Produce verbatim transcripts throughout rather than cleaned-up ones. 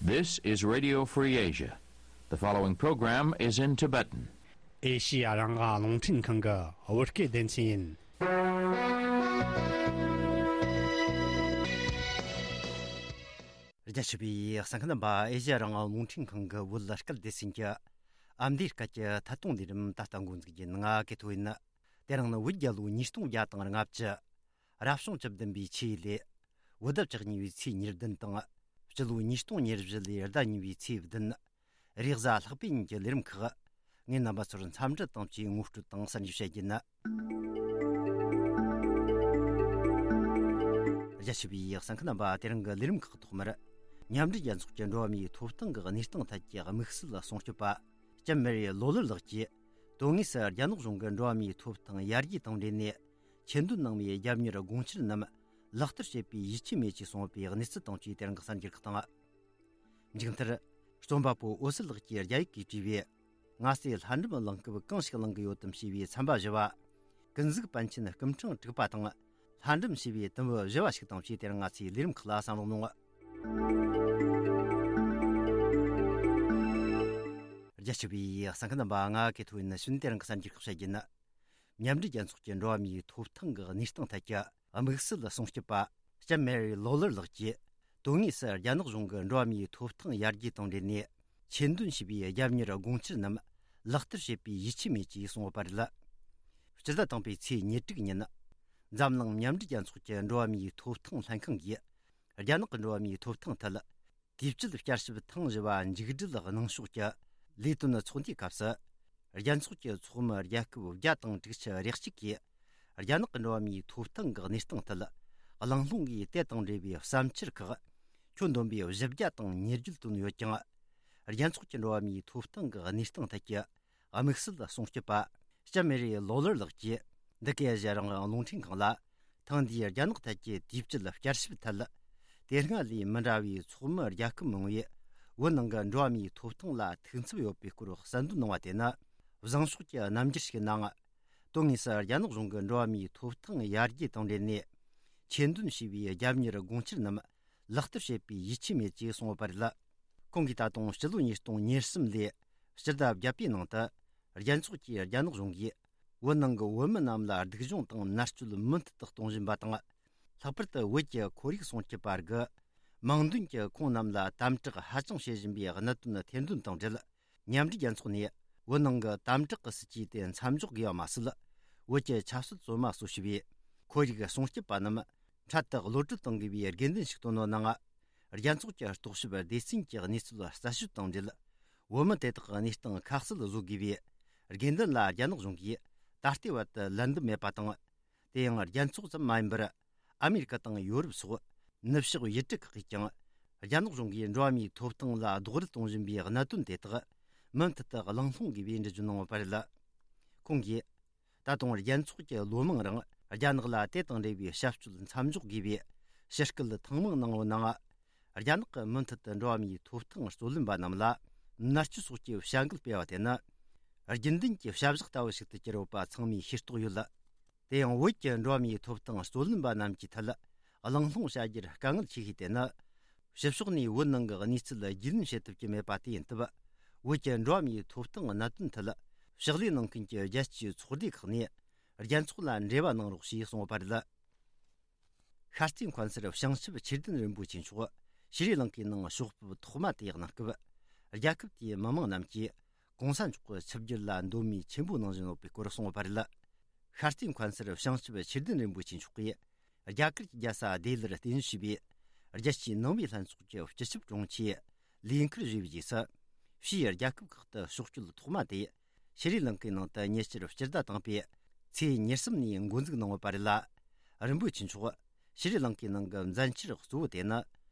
This is Radio Free Asia. The following program is in Tibetan. ཨེ་ཤི་ཡ་རང་དབང་རླུང་འཕྲིན་ཁང་གི་བོད་སྐད་སྡེ་ཚན་ཡིན། རྒྱ་ཆེ་བའི་གསན་མཁན་རྣམ་པ། ཨེ་ཤི་ཡ་རང་དབང་རླུང་འཕྲིན་ཁང་གི་བོད་སྐད་སྡེ་ཚན་གྱི་ཨ་མདོའི་སྐད་ཀྱི་ཐད་གཏོང་ལས་རིམ་ད་ལྟ་འགོ་འཛུགས་རྒྱུ་ཡིན། ང་ཀེ་ཐོ་ཡིན། དེ་རིང་ནི་བོད་རྒྱལ་ལོ་ཉིས་སྟོང་བརྒྱ་དང་ལྔ་བཅུ། རབ་བྱུང་བཅུ་བདུན་པའི་ཆུ་ཡོས་ལོའི་བོད་ཟླ་བཅུ་གཉིས་པའི་ཚེས་ཉེར་བདུན་དང་། སྤྱི་ལོ་ཉིས་སྟོང་ཉེར་བཞི་ལོའི་ཟླ་གཉིས་པའི་ཚེས་བདུན། རེས་གཟའ་ལྷག་པའི་ཉིན་གྱི་ལས་རིམ་ཁག་ངས་རྣམ་པ་ཚོར་འཚམས་འདྲི་དང་བཅས་ངོ་སྤྲོད་དང་གསར་འགྱུར་བཤད་རྒྱུ་ཡིན། རྒྱ་ཆེ་བའི་གསན་མཁན་རྣམ་པ། དེ་རིང་གི་ལས་རིམ་ཁག་ཐོག་མར། མཉམ་འབྲེལ་རྒྱལ་ཚོགས་ཀྱི་འགྲོ་བ་མིའི་ཐོབ་ཐང་གི་གནས་སྟངས་ཐད་ཀྱི་དམིགས་བསལ་སྲུང་སྐྱོབ་པ། ལྕམ་མེ་རི་ལོ་ལར་ལགས་ཀྱིས། དོན་དངོས་སུ་རྒྱ་ནག་གཞུང་གི་འགྲོ་བ་མིའི་ཐོབ་ཐང་ཡར་རྒྱས་དང་འབྲེལ་ནས། ཆེད་འདོན་གནང་བའི་རྒྱབ་གཉེར་དགོངས་འཆར་རྣམས་ལག་བསྟར་བྱེད་པའི་ཡིད་ཆེས་མེད་ཅེས་གསུངས་པའི་གནས་ཚུལ་དང་བཅས་དེ་རིང་གི་གསར་འགྱུར་ཁག་དང་། མཇུག་མཐར། རྩོམ་པ་པོ་འོད་ཟེར་ལགས་ཀྱིས་རྒྱ་ཡིག་གིས་བྲིས་པའི། ང་ཚོས་ལྷ་འབྲུམ་གླེང་སྐབས་གང་ཞིག་གླེང་གི་ཡོད་དམ་ཞེས་པའི་ཚན་པ་བཞི་བ། ཀུན་གཟིགས་པཎ་ཆེན་སྐུ་ཕྲེང་དྲུག་པ་དང་ལྷ་འབྲུམ་ཞེས་པའི་དུམ་བུ་བཞི་བ་ཞིག་དང་བཅས་དེ་རིང་ང་ཚོའི་ལས་རིམ་ཁག་ལ་གསན་རོགས་གནང་། རྒྱ་ཆེ་བའི་གསན་མཁན་རྣམ་པ། ང་ཀེ་ཐོ་ཡིན། ཕྱི་ནས་དེ་རིང་གི་གསར་འགྱུར་ཁག་བཤད་རྒྱུ་ཡིན། མཉམ་འབྲེལ་རྒྱལ་ཚོགས་ཀྱི་འགྲོ་བ་མིའི་ཐོབ་ཐང་གི་གནས་སྟངས་ཐད་ཀྱི་དམིགས་བསལ་སྲུང་སྐྱོབ་པ་ལྕམ་མེ་རི་ལོ་ལར་ལགས་ཀྱིས། དོན་དངོས་སུ་རྒྱ་ནག་གཞུང་གི་འགྲོ་བ་མིའི་ཐོབ་ཐང་ཡར་རྒྱས་དང་འབྲེལ་ནས་ཆེད་འདོན་བྱས་པའི་རྒྱབ་གཉེར་དགོངས་འཆར་རྣམས་ལག་བསྟར་བྱེད་པའི་ཡིད་ཆེས་མེད་ཅེས་གསུངས་ཡོད་པ་རེད། སྤྱི་ཟླ་དང་པོའི་ཚེས་ཉེར་དྲུག་ཉིན། འཛམ་གླིང་མཉམ་འབྲེལ་རྒྱལ་ཚོགས་ཀྱི་འགྲོ་བ་མིའི་ཐོབ་ཐང་ལྷན་ཁང་གིས། རྒྱ་ནག་གི་འགྲོ་བ་མིའི་ཐོབ་ཐང་ཐད། དུས་བཅད་བསྐྱར་ཞིབ་ཐེངས་བཞི་པ་མཇུག་སྒྲིལ་གནང་ཕྱོགས་ཀྱི་ལས་དོན་ཚོགས་འདུའི་སྐབས་སུ། རྒྱལ་ཚོགས་ཀྱི་ཚོགས་མི་རྒྱལ་ཁབ་བརྒྱ་དང་དྲུག་ཅུ་རེ་གཅིག་གིས། རྒྱ་ནག་གི་འགྲོ་བ་མིའི་ཐོབ་ཐང་གི་གནས་སྟངས་ཐད། གླེང་སློང་གིས་དེ་དང་འབྲེལ་བའི་བསམ་འཆར་ཁག་ཁྱོན་བསྡོམས་པའི་བཞི་བརྒྱ་དང་ཉེར་བརྒྱད་བཏོན་ཡོད་ཀྱང་། རྒྱལ་ཚོགས་ཀྱི་འགྲོ་བ་མིའི་ཐོབ་ཐང་གི་གནས་སྟངས་ཐད་ཀྱི་དམིགས་བསལ་སྲུང་སྐྱོབ་པ་ལྕམ་མེ་རི་ལོ་ལར་ལགས་ཀྱིས། འདི་གའི་ཨེ་ཤ་ཡ་རང་དབང་རླུང་འཕྲིན་ཁང་ལ། ཐེངས་འདིའི་རྒྱ་ནག་ཐད་ཀྱི་དུས་བཅད་བསྐྱར་ཞིབ་ཐད། དེ་སྔ་ལས་མི་འདྲ་བའི་ཚོགས་མི་རྒྱལ་ཁབ་མང་བོས་བོད་ནང་གི་འགྲོ་བ་མིའི་ཐོབ་ཐང་ལ་ཐུགས་འཚབ་ཡོད་པའི་སྐོར་གསལ་འདོན་གནང་བ་དེ་ནི། བཟང་ཕྱོགས་ཀྱི་རྣམ་འགྱུར་ཞིག་ཡིན་ནའང་། དོན་དངོས་སུ་རྒྱ་ནག་གཞུང་གི་འགྲོ་བ་མིའི་ཐོབ་ཐང་ཡར་རྒྱས་དང་འབྲེལ་ནས། ཆེད་འདོན་བྱས་པའི་རྒྱབ་གཉེར་དགོངས་འཆར་རྣམས་ལག་བསྟར་བྱེད་པའི་ཡིད་ཆེས་མེད་ཅེས་གསུངས་ཡོད་པ་རེད། ཁོང་གིས་ད་དུང་སྤྱི་ལོ་ཉིས་སྟོང་ཉེར་གསུམ་ལོའི་སྤྱི་ཟླ་བརྒྱད་པའི་ནང་དུ། རྒྱལ་ཚོགས་ཀྱིས་རྒྱ་ནག་གཞུང་གིས་བོད་ནང་གི་བོད་མི་རྣམས་ལ་སྡུག་སྦྱོང་དང་མནར་གཅོད་མུ་མཐུད་དུ་གཏོང་བཞིན་པ་དང་། ལྷག་པར་དུ་བོད་ཀྱི་ཁོར་ཡུག་སྲུང་སྐྱོབ་པ་རིགས་མིང་འདོན་གྱིས་ཁོང་རྣམས་ལ་དམ་དྲག་ཧ་ཅང་བྱེད་བཞིན་པའི་གནད་དོན་ཐེར་འདོན་དང་འབྲེལ། མཉམ་འབྲེལ་རྒྱལ་ཚོགས་ནས་བོད་ནང་གི་དམ་དྲག་གི་སྲིད་ཇུས་དེ་མཚམས་འཇོག་དགོས་པ་མ་ཟད། བོད་ཀྱི་ཆབ་སྲིད་བཙོན་མ་གཙོ་བྱས་པའི་ཁོར་ཡུག་སྲུང་སྐྱོབ་པ་རྣམས་འཕྲལ་དུ་གློད་གྲོལ་གཏོང་དགོས་པའི་དགོས་འདུན་ཞིག་བཏོན་ཡོད་ནའང་། རྒྱལ་ཚོགས་ཀྱི་རྟོག་ཞིབ་སྡེ་ཚན་གྱི་གནས་ཚུལ་རྩད་གཅོད་དང་འབྲེལ། བོད་མི་དེ་དག་གི་གནས་སྟངས་ཁ་གསལ་བཟོ་དགོས་པའི་དགོས་འདུན་ལ་རྒྱ་ནག་གཞུང་གིས་ད་ལྟའི་བར་དུ་ལན་འདེབས་མེད་པ་དང་། དེ་ཡང་རྒྱལ་ཚོགས་ཙམ་མ་ཡིན་པར། ཨ་མེ་རི་ཀ་དང་ཡོ་རོབ་སོགས་ནུབ་ཕྱོགས་ཡུལ་གྲུ་ཁག་གིས་ཀྱང་། རྒྱ་ནག་གཞུང་གིས་འགྲོ་བ་མིའི་ཐོབ་ཐང་ལ་རྡོག་རོལ་གཏོང་བཞིན་པའི་གནད་དོན་དེ་དག་མུ་མཐུད་དུ་གླེང་སློང་དགོས་པའི་འགྲེལ་བརྗོད་གནང་ཡོད་པ་རེད། ཁོང་གིས། ད་དུང་རྒྱལ་ཚོགས་ཀྱིས་ལོ་མང་རིང་རྒྱ་ནག་ལ་དེ་དང་འབྲེལ་བའི་བྱ་སྤྱོད་མཚམས་འཇོག་དགོས་པའི་ཕྱིར་སྐུལ་ཐེངས་མང་གནང་ཡོད་ནའང་། རྒྱ་ནག་གིས་མུ་མཐུད་དུ་འགྲོ་བ་མིའི་ཐོབ་ཐང་རྩོད་ལེན་པ་རྣམས་ལ་མནར་གཅོད་སོགས་ཀྱི་བྱ་འགུལ་སྤེལ་བ་དེ་ནི། རྒྱུན་ལྡན་གྱི་བྱ་གཞག་ལྟ་བུ་ཞིག་ཏུ་གྱུར་ཡོད་པ་ཚང་མས་ཤེས་རྟོགས་ཡོད། དེ་ཡང་བོད་ཀྱི་འགྲོ་བ་མིའི་ཐོབ་ཐང་རྩོད་ལེན་པ་རྣམས་ཀྱི་ཐད་གླེང་སློང་བྱ་རྒྱུར་དཀའ་ངལ་ཆེ་ཤོས་དེ་ནི། ཕྱི་ཕྱོགས་ནས་བོད་ནང་གི་གནས་ཚུལ་རྒྱུས་ལོན་བྱེད་ཐུབ་ཀྱི་མེད་པ་དེ་ཡིན་སྟབས། བོད་ཀྱི་འགྲོ་བ་མིའི་ཐོབ་ཐང་གནད་དོན་ཐད་ཕྱག་ལས་གནང་མཁན་གྱི་རྒྱལ་སྤྱིའི་ཚོགས་སྡེ་ཁག་ནས་རྒྱལ་ཚོགས་ལ་འབྲེལ་བ་གནང་རོགས་ཞེས་གསུངས་ཡོད་པ་རེད། ཤར་རྩེ་མཁན་ཟུར་བྱང་ཆུབ་ཆོས་ལྡན་རིན་པོ་ཆེ་མཆོག་ཤྲི་ལང་ཀའི་ནང་ཕྱོགས་ཕེབས་ཐོག་མ་དེ་གནང་སྐབས། རྒྱལ་ཁབ་དེའི་མི་མང་རྣམས་ཀྱིས་གོང་ས་མཆོག་གི་ཆིབས་བསྒྱུར་ལ་མདོ་སྨད་ཆེན་པོ་གནང་བཞིན་ཡོད་པའི་སྐོར་གསུངས་ཡོད་པ་རེད། ཤར་རྩེ་མཁན་ཟུར་བྱང་ཆུབ་ཆོས་ལྡན་རིན་པོ་ཆེ་མཆོག་གིས། རྒྱ་གར་གྱི་རྒྱལ་ས་ལྡི་ལིར་རྟེན་གཞི་བྱས་པའི་རྒྱལ་སྤྱིའི་ནང་པའི་ལྷན་ཚོགས་ཀྱི་སྤྱི་ཁྱབ་དྲུང་ཆེའི་ལས་འཁུར་བཞེས་པའི་རྗེས་སུ། ཕྱིའི་རྒྱལ་ཁབ་ཁག་ཏུ་ཕྱོགས་བསྐྱོད་ཐོག་མ་དེ་ཤྲི་ལང་ཀའི་ནང་དུ་ཉེ་ཆར་སྤྱི་ཟླ་དང་པོའི་ཚེས་ཉེར་གསུམ་ནས་འགོ་འཛུགས་གནང་ཡོད་པ་རེད་ལ། རིན་པོ་ཆེ་མཆོག་ཤྲི་ལང་ཀའི་ནང་གི་མཛད་འཆར་གཙོ་བོ་དེ་ནི།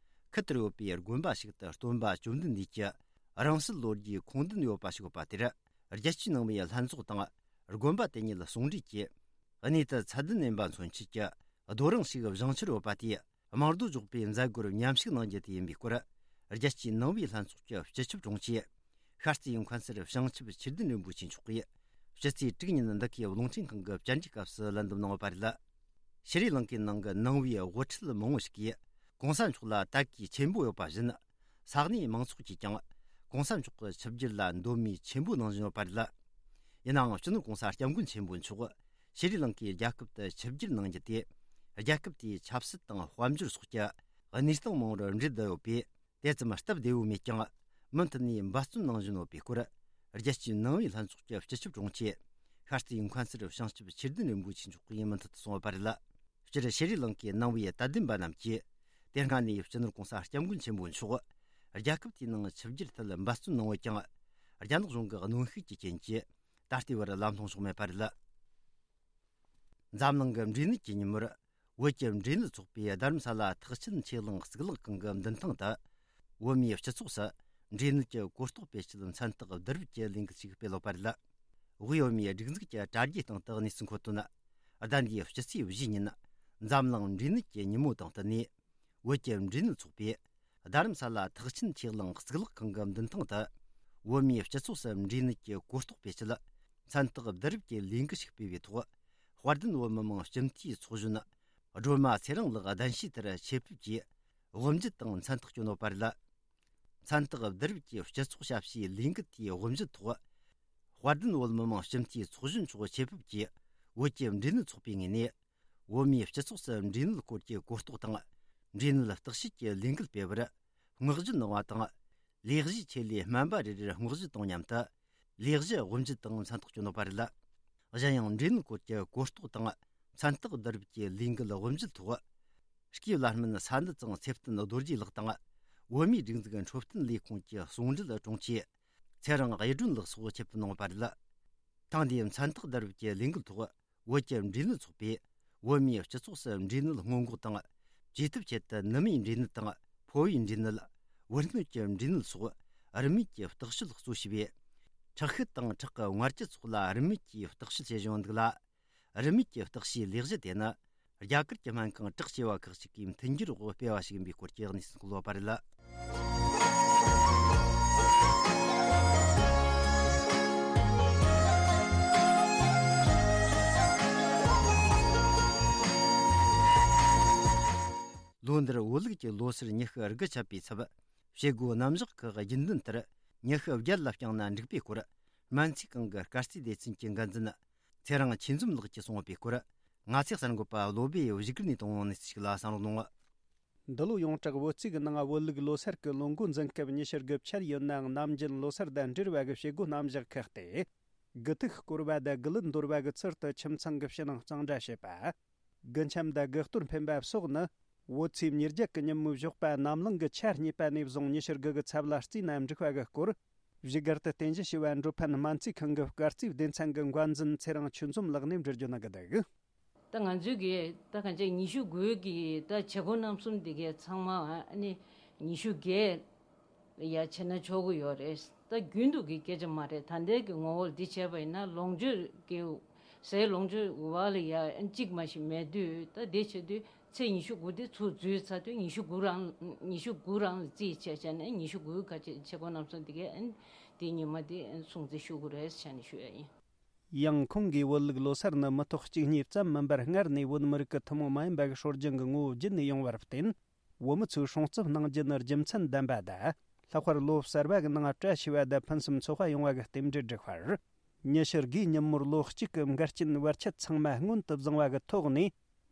ཁུལ་དེར་ཡོད་པའི་དགོན་པ་ཞིག་ཏུ་སྟོན་པ་བཅོམ་ལྡན་འདས་ཀྱི་རང་གསལ་ལོ་རྒྱུས་ཁུངས་ལྡན་ཡོད་པ་ཞིག་ཡོད་པ་དེར། རྒྱལ་སྤྱིའི་ནང་པའི་ལྷན་ཚོགས་དང་། དགོན་པ་དེ་ཉིད་ཟུང་འབྲེལ་གྱིས། གནས་དུ་ཚད་ལྡན་སྨན་པ་མཚོན་ཆེད་ཀྱི་རྡོ་རིང་ཞིག་བཞེངས་འཆར་ཡོད་པ་དེས། དམངས་རྡོ་འཇོག་པའི་མཛད་སྒོར་མཉམ་ཞུགས་གནང་རྒྱུ་དེ་ཡིན་པའི་སྐོར། རྒྱལ་སྤྱིའི་ནང་པའི་ལྷན་ཚོགས་ཀྱི་སྤྱི་ཁྱབ་དྲུང་ཆེ། ཤར་རྩེའི་མཁན་ཟུར་བྱང་ཆུབ་ཆོས་ལྡན་རིན་པོ་ཆེ་མཆོག་གིས། ཕྱི་ཚེས་དྲུག་ཉིན་འདི་གའི་རླུང་འཕྲིན་ཁང་གི་བཅར་འདྲིའི་སྐབས་སུ་ལན་འདེབས་གནང་ཡོད་པ་རེད། ཤྲི་ལང་ཀའི་ནང་གི་ནང་པའི་དབུ་ཁྲིད་མང་བོ་ཞིག་གིས། གོང་ས་མཆོག་ལ་དད་གུས་ཆེན་པོ་ཡོད་པ་བཞིན། ས་གནས་མང་ཚོགས་ཀྱིས་ཀྱང་གོང་ས་མཆོག་གི་ཆིབས་བསྒྱུར་ལ་འདོད་མོས་ཆེན་པོ་གནང་བཞིན་ཡོད་པ་རེད། ཡིན་ནའང་སྤྱི་ནོར་གོང་ས་སྐྱབས་མགོན་ཆེན་པོ་མཆོག་ཤྲི་ལང་ཀའི་རྒྱལ་ཁབ་ཏུ་ཆིབས་བསྒྱུར་གནང་རྒྱུ་དེ་རྒྱལ་ཁབ་དེའི་ཆབ་སྲིད་དང་དཔལ་འབྱོར་སོགས་ཀྱི་གནས་སྟངས་མང་བོར་འབྲེལ་བསྡད་ཡོད་པས། དེ་ཙམ་སྟབས་བདེ་བོ་མེད་ཀྱང་། མུ་མཐུད་ནས་འབད་བརྩོན་གནང་བཞིན་ཡོད་པའི་སྐོར། རྒྱལ་སྤྱིའི་ནང་པའི་ལྷན་ཚོགས་ཀྱི་སྤྱི་ཁྱབ་དྲུང་ཆེ། ཤར་རྩེའི་མཁན་ཟུར་བྱང་ཆུབ་ཆོས་ལྡན་རིན་པོ་ཆེ་མཆོག་གིས་མུ་མཐུད་དུ་གསུངས་ཡོད་པ་རེད། སྤྱིར་ཤྲི་ལང་ཀའི་ནང་པའི་དད་ལྡན་པ་རྣམས་ཀྱིས། དེ་སྔ་ནས་སྤྱི་ནོར་གོང་ས་སྐྱབས་མགོན་ཆེན་པོ་མཆོག་རྒྱལ་ཁབ་དེའི་ནང་ཆིབས་བསྒྱུར་ཐད་འབད་བརྩོན་གནང་བ་ཀྱང་། རྒྱ་ནག་གཞུང་གི་གནོན་ཤུགས་ཀྱི་རྐྱེན་གྱིས། ད་ལྟའི་བར་ལམ་ལྷོང་བྱུང་མེད་པ་རེད། འཛམ་གླིང་གི་འབྲས་ནད་ཀྱི་ཉིན་མོར། བོད་ཀྱི་འབྲས་ནད་ཚོགས་པས་རྡ་རམ་ས་ལ་ཐེག་ཆེན་ཆོས་གླིང་གཙུག་ལག་ཁང་གི་མདུན་ཐང་དུ། བོད་མིའི་སྤྱི་ཚོགས་སུ་འབྲས་ནད་ཀྱི་གོ་རྟོགས་སྤེལ་ཆེད་མཚན་རྟགས་བསྡུ་རུབ་ཀྱི་ལས་འགུལ་ཞིག་སྤེལ་ཡོད་པ་རེད། དབུས་བོད་མིའི་སྒྲིག་འཛུགས་ཀྱི་དྲ་རྒྱའི་སྟེང་དུ་གནས་ཚུལ་འཁོད་དོན། ཟླ་འདིའི་སྤྱི་ཚེས་བཞི་ཉིན། འཛམ་གླིང་འབྲས་ནད་ཀྱི་ཉིན་མོ་དང་བསྟུན་ནས། བོད་ཀྱི་འབྲས་ནད་ཚོགས་པས། རྡ་རམ་ས་ལ་ཐེག་ཆེན་ཆོས་གླིང་གཙུག་ལག་ཁང་གི་མདུན་ཐང་དུ། བོད་མིའི་སྤྱི་ཚོགས་སུ་འབྲས་ནད་ཀྱི་གོ་རྟོགས་སྤེལ་ཆེད། མཚན་རྟགས་བསྡུ་རུབ་ཀྱི་ལས་འགུལ་ཞིག་སྤེལ་བའི་ཐོག་དཔལ་ལྡན་བོད་མི་མང་སྤྱི་འཐུས་ཚོགས་གཞོན། སྒྲོལ་མ་ཚེ་རིང་ལགས་གདན་ཞུས་ལྟར་ཆེད་ཕེབས་ཀྱིས། དབུ་འབྱེད་དང་མཚན་རྟགས་བསྐྱོན་ཡོད་པ་རེད། མཚན་རྟགས་བསྡུ་རུབ་ཀྱི་སྤྱི་ཚོགས་ཞབས་ཞུའི་ལས་འགུལ་དེའི་དབུ་འབྱེད་ཐོག་དཔལ་ལྡན་བོད་མི་མང་སྤྱི་འཐུས་ཚོགས་གཞོན་མཆོག་ཆེད་ཕེབས་ཀྱིས། བོད་ཀྱི་འབྲས་ནད་ཚོགས་པའི་ངོས་ནས། བོད་མིའི་སྤྱི་ཚོགས་སུ་འབྲས་ནད་སྐོར་གྱི་གོ་རྟོགས་དང་། འབྲས་ནད་བརྟག་དཔྱད་ཀྱི་ལས་འགུལ་སྤེལ་བར། བསྔགས་བརྗོད་གནང་བ་དང་། ལས་གཞིའི་ཆེད་ལས་སྨན་པ་རེ་རེར་བསྔགས་བརྗོད་དང་མཉམ་དུ། ལས་གཞི་དབུ་འབྱེད་དང་མཚན་རྟགས་བསྐྱོན་ཡོད་པ་རེད། གཞན་ཡང་། འབྲས་ནད་སྐོར་གྱི་གོ་རྟོགས་དང་། མཚན་རྟགས་བསྡུ་རུབ་ཀྱི་ལས་འགུལ་དབུ་འབྱེད་ཐོག་སྐྱེས་བུ་བླ་སྨན་ས་འདུ་ཚང་ཚེ་བརྟན་རྡོ་རྗེ་ལགས་དང་། བོད་མིའི་སྒྲིག་འཛུགས་འཕྲོད་བསྟེན་ལས་ཁུངས་ཀྱི་ཟུང་འབྲེལ་དྲུང་ཆེ། ཚེ་རིང་གཡུ་སྒྲོན་ལགས་སོགས་ཆེད་དུ་གནང་བ་རེད། ཐེངས་འདིའི་མཚན་རྟགས་བསྡུ་རུབ་ཀྱི་ལས་འགུལ་ཐོག་བོད་ཀྱི་འབྲས་ནད་ཚོགས་པས། བོད་མིའི་སྤྱི་ཚོགས་སུ་འབྲས་ནད་སྔོན་འགོག་དང་། བཅོས་ཐབས་ཆེད་དུ་ནུ་མའི་འབྲས་ནད་དང་། ཕོ་བའི་འབྲས་ནད། བུ་སྣོད་ཀྱི་འབྲས་ནད་སོགས། རིན་མེད་ཀྱི་བརྟག་དཔྱད་གཙོ་བྱས་པའི། ཁྲག་ཤེད་དང་ཁྲག་གི་མངར་སྐྱི་སོགས་ལ་རིན་མེད་ཀྱི་བརྟག་དཔྱད་བྱེད་བཞིན་འདུག་ལ། རིན་མེད་ཀྱི་བརྟག་དཔྱད་ལས་གཞི་དེ་ནི། རྒྱ་གར་གྱི་སྨན་ཁང་བྲག་བྱེ་བ་ཁག་ཅིག་གིས་མཐུན་འགྱུར་འོག་སྤེལ་བ་ཞིག་ཡིན་པའི་སྐོར་གྱི་གནས་ཚུལ་འཁོད་ཡོད་པ་རེད། ལོ་འདིར་བོད་ལུགས་ཀྱི་ལོ་སར་ཉི་ཤུ་དགུ་ཆགས་པའི་ཚབ། བྱེད་སྒོ་རྣམ་གཞག་ཁག་རྒྱུན་ལྡན་ལྟར་ཉི་ཤུ་བརྒྱད་ལ་བསྐྱངས་ན་འགྲིག་པའི་སྐོར། སྨན་རྩིས་ཁང་གི་སྐར་རྩིས་སྡེ་ཚན་གྱི་འགན་འཛིན། ཚེ་རིང་ཆོས་འཛོམས་ལགས་ཀྱིས་གསུངས་པའི་སྐོར། ང་ཚོའི་གསར་འགོད་པ་བློ་བྷེ་བཞུགས་སྒར་ནས་བཏང་བའི་གནས་ཚུལ་ཞིག་ལ་གསན་རོགས་གནང་། འདི་ལོ་ཡོངས་གྲགས་བོད་རྩིས་ཀྱི་ནང་བོད་ལུགས་ལོ་སར་གྱི་ལོ་འགོ་འཛིན་སྐབས་ཉི་ཤུ་དགུ་བཅར་ཡོད་ནའང་ནམ་རྒྱུན་ལོ་སར་དང་འབྲེལ་བ་གི་བྱེད་སྒོ་རྣམ་གཞག་ཁག་སྟེ། དགུ་ཐུག་བསྐོར་བ་དང་དགུ་ལུད་འདོར་བ་གི་ཚུལ་དུ་ཁྱིམ་ཚང་གི་ཕྱི་ནང་གཙང་སྦྲ་བྱེད་པ། དགུ་འཆམ་དང་དགུ་གཏོར་འཕེན་པ་སོགས་ནི། བོད་ཚེས་ཉེར་བརྒྱད་ཀྱི་ཉིན་མོའི་ཞོགས་པ་ནམ་ལངས་ཀྱི་ཆ་གཉིས་པ་ནས་བཟུང་ཉི་ཤུ་དགུ་གི་ཚབ་ལ་བརྩིས་ན་འགྲིག་པ་གི་སྐོར། བཞུགས་སྒར་དུ་རྟེན་གཞི་བྱས་པ་འགྲོ་ཕན་སྨན་རྩིས་ཁང་གི་སྐར་རྩིས་སྡེ་ཚན་གྱི་འགན་འཛིན་ཚེ་རིང་ཆོས་འཛོམས་ལགས་ནས་འགྲེལ་བརྗོད་གནང་གི་འདུག་ད་ང་ཚོའི་གི་ད་གང་ཅི་ཉི་ཤུ་དགུའི་གི་ད་བྱེད་སྒོ་རྣམ་གསུམ་འདི་གའི་ཚང་མ་ཨ་ནི་ཉི་ཤུ་བརྒྱད་ཡ་བྱས་ན་ཆོག་གི་ཡོད་རེད། ད་རྒྱུན་དུ་གི་སྐད་ཆ་མ་རེད། ད་ལྟའི་གི་ངོ་བོར་འདི་བྱས་པ་ཡིན་ན་ལོངས་སྤྱོད་ཀྱི་ཟས་ལོངས་སྤྱོད་བ་ལ་ཡ་གཅིག་མ་ཞིག་མེད་དུས། ད་འདི་བྱེད་དུས་ཚེས་ཉི་ཤུ་དགུ་དེ་ཚུར་འཛུལ་ཚར་དུས་ཉི་ཤུ་དགུ་རང་ཉི་ཤུ་དགུ་རང་ལ་རྩིས་བྱས་བྱས་ནས་ཉི་ཤུ་དགུ་ག་ཅེ་བྱེད་སྒོ་རྣམ་གསུམ་འདི་གའི་ཨ་ནི་དེ་ཉི་མ་དེ་སྲུང་བརྩི་ཞུ་དགོས་རེད་ཟེར་ནས་ཞུ་ཡ་ཡིན། ཡང་ཁོང་གིས་བོད་ལུགས་ལོ་སར་ནི་མི་ཐོག་གཅིག་གཉིས་ཙམ་མིན་པར་སྔར་ནས་བོད་མི་རིགས་ཀྱི་ཐུན་མོང་མ་ཡིན་པ་གི་སྲོལ་རྒྱུན་གྱི་ངོ་བོ་བརྒྱུད་ནས་ཡོང་བར་བརྟེན། བོད་མི་ཚོས་སྲུང་བརྩི་གནང་རྒྱུ་ནི་རྒྱུ་མཚན་ལྡན་པ་དང་། ལྷག་པར་ལོ་གསར་བ་གི་ནང་བཀྲ་ཤིས་པ་དང་ཕུན་སུམ་ཚོགས་པ་ཡོང་བ་གི་རྟེན་འབྲེལ་བསྒྲིགས་པར། ཉི་ཤུ་དགུའི་ཉིན་མོར་ལོ་གཅིག་གི་འགལ་རྐྱེན་བར་ཆད་ཚང་མ་སྔོན་དུ་བཟུང་བ་གི་ཐོག་ནས།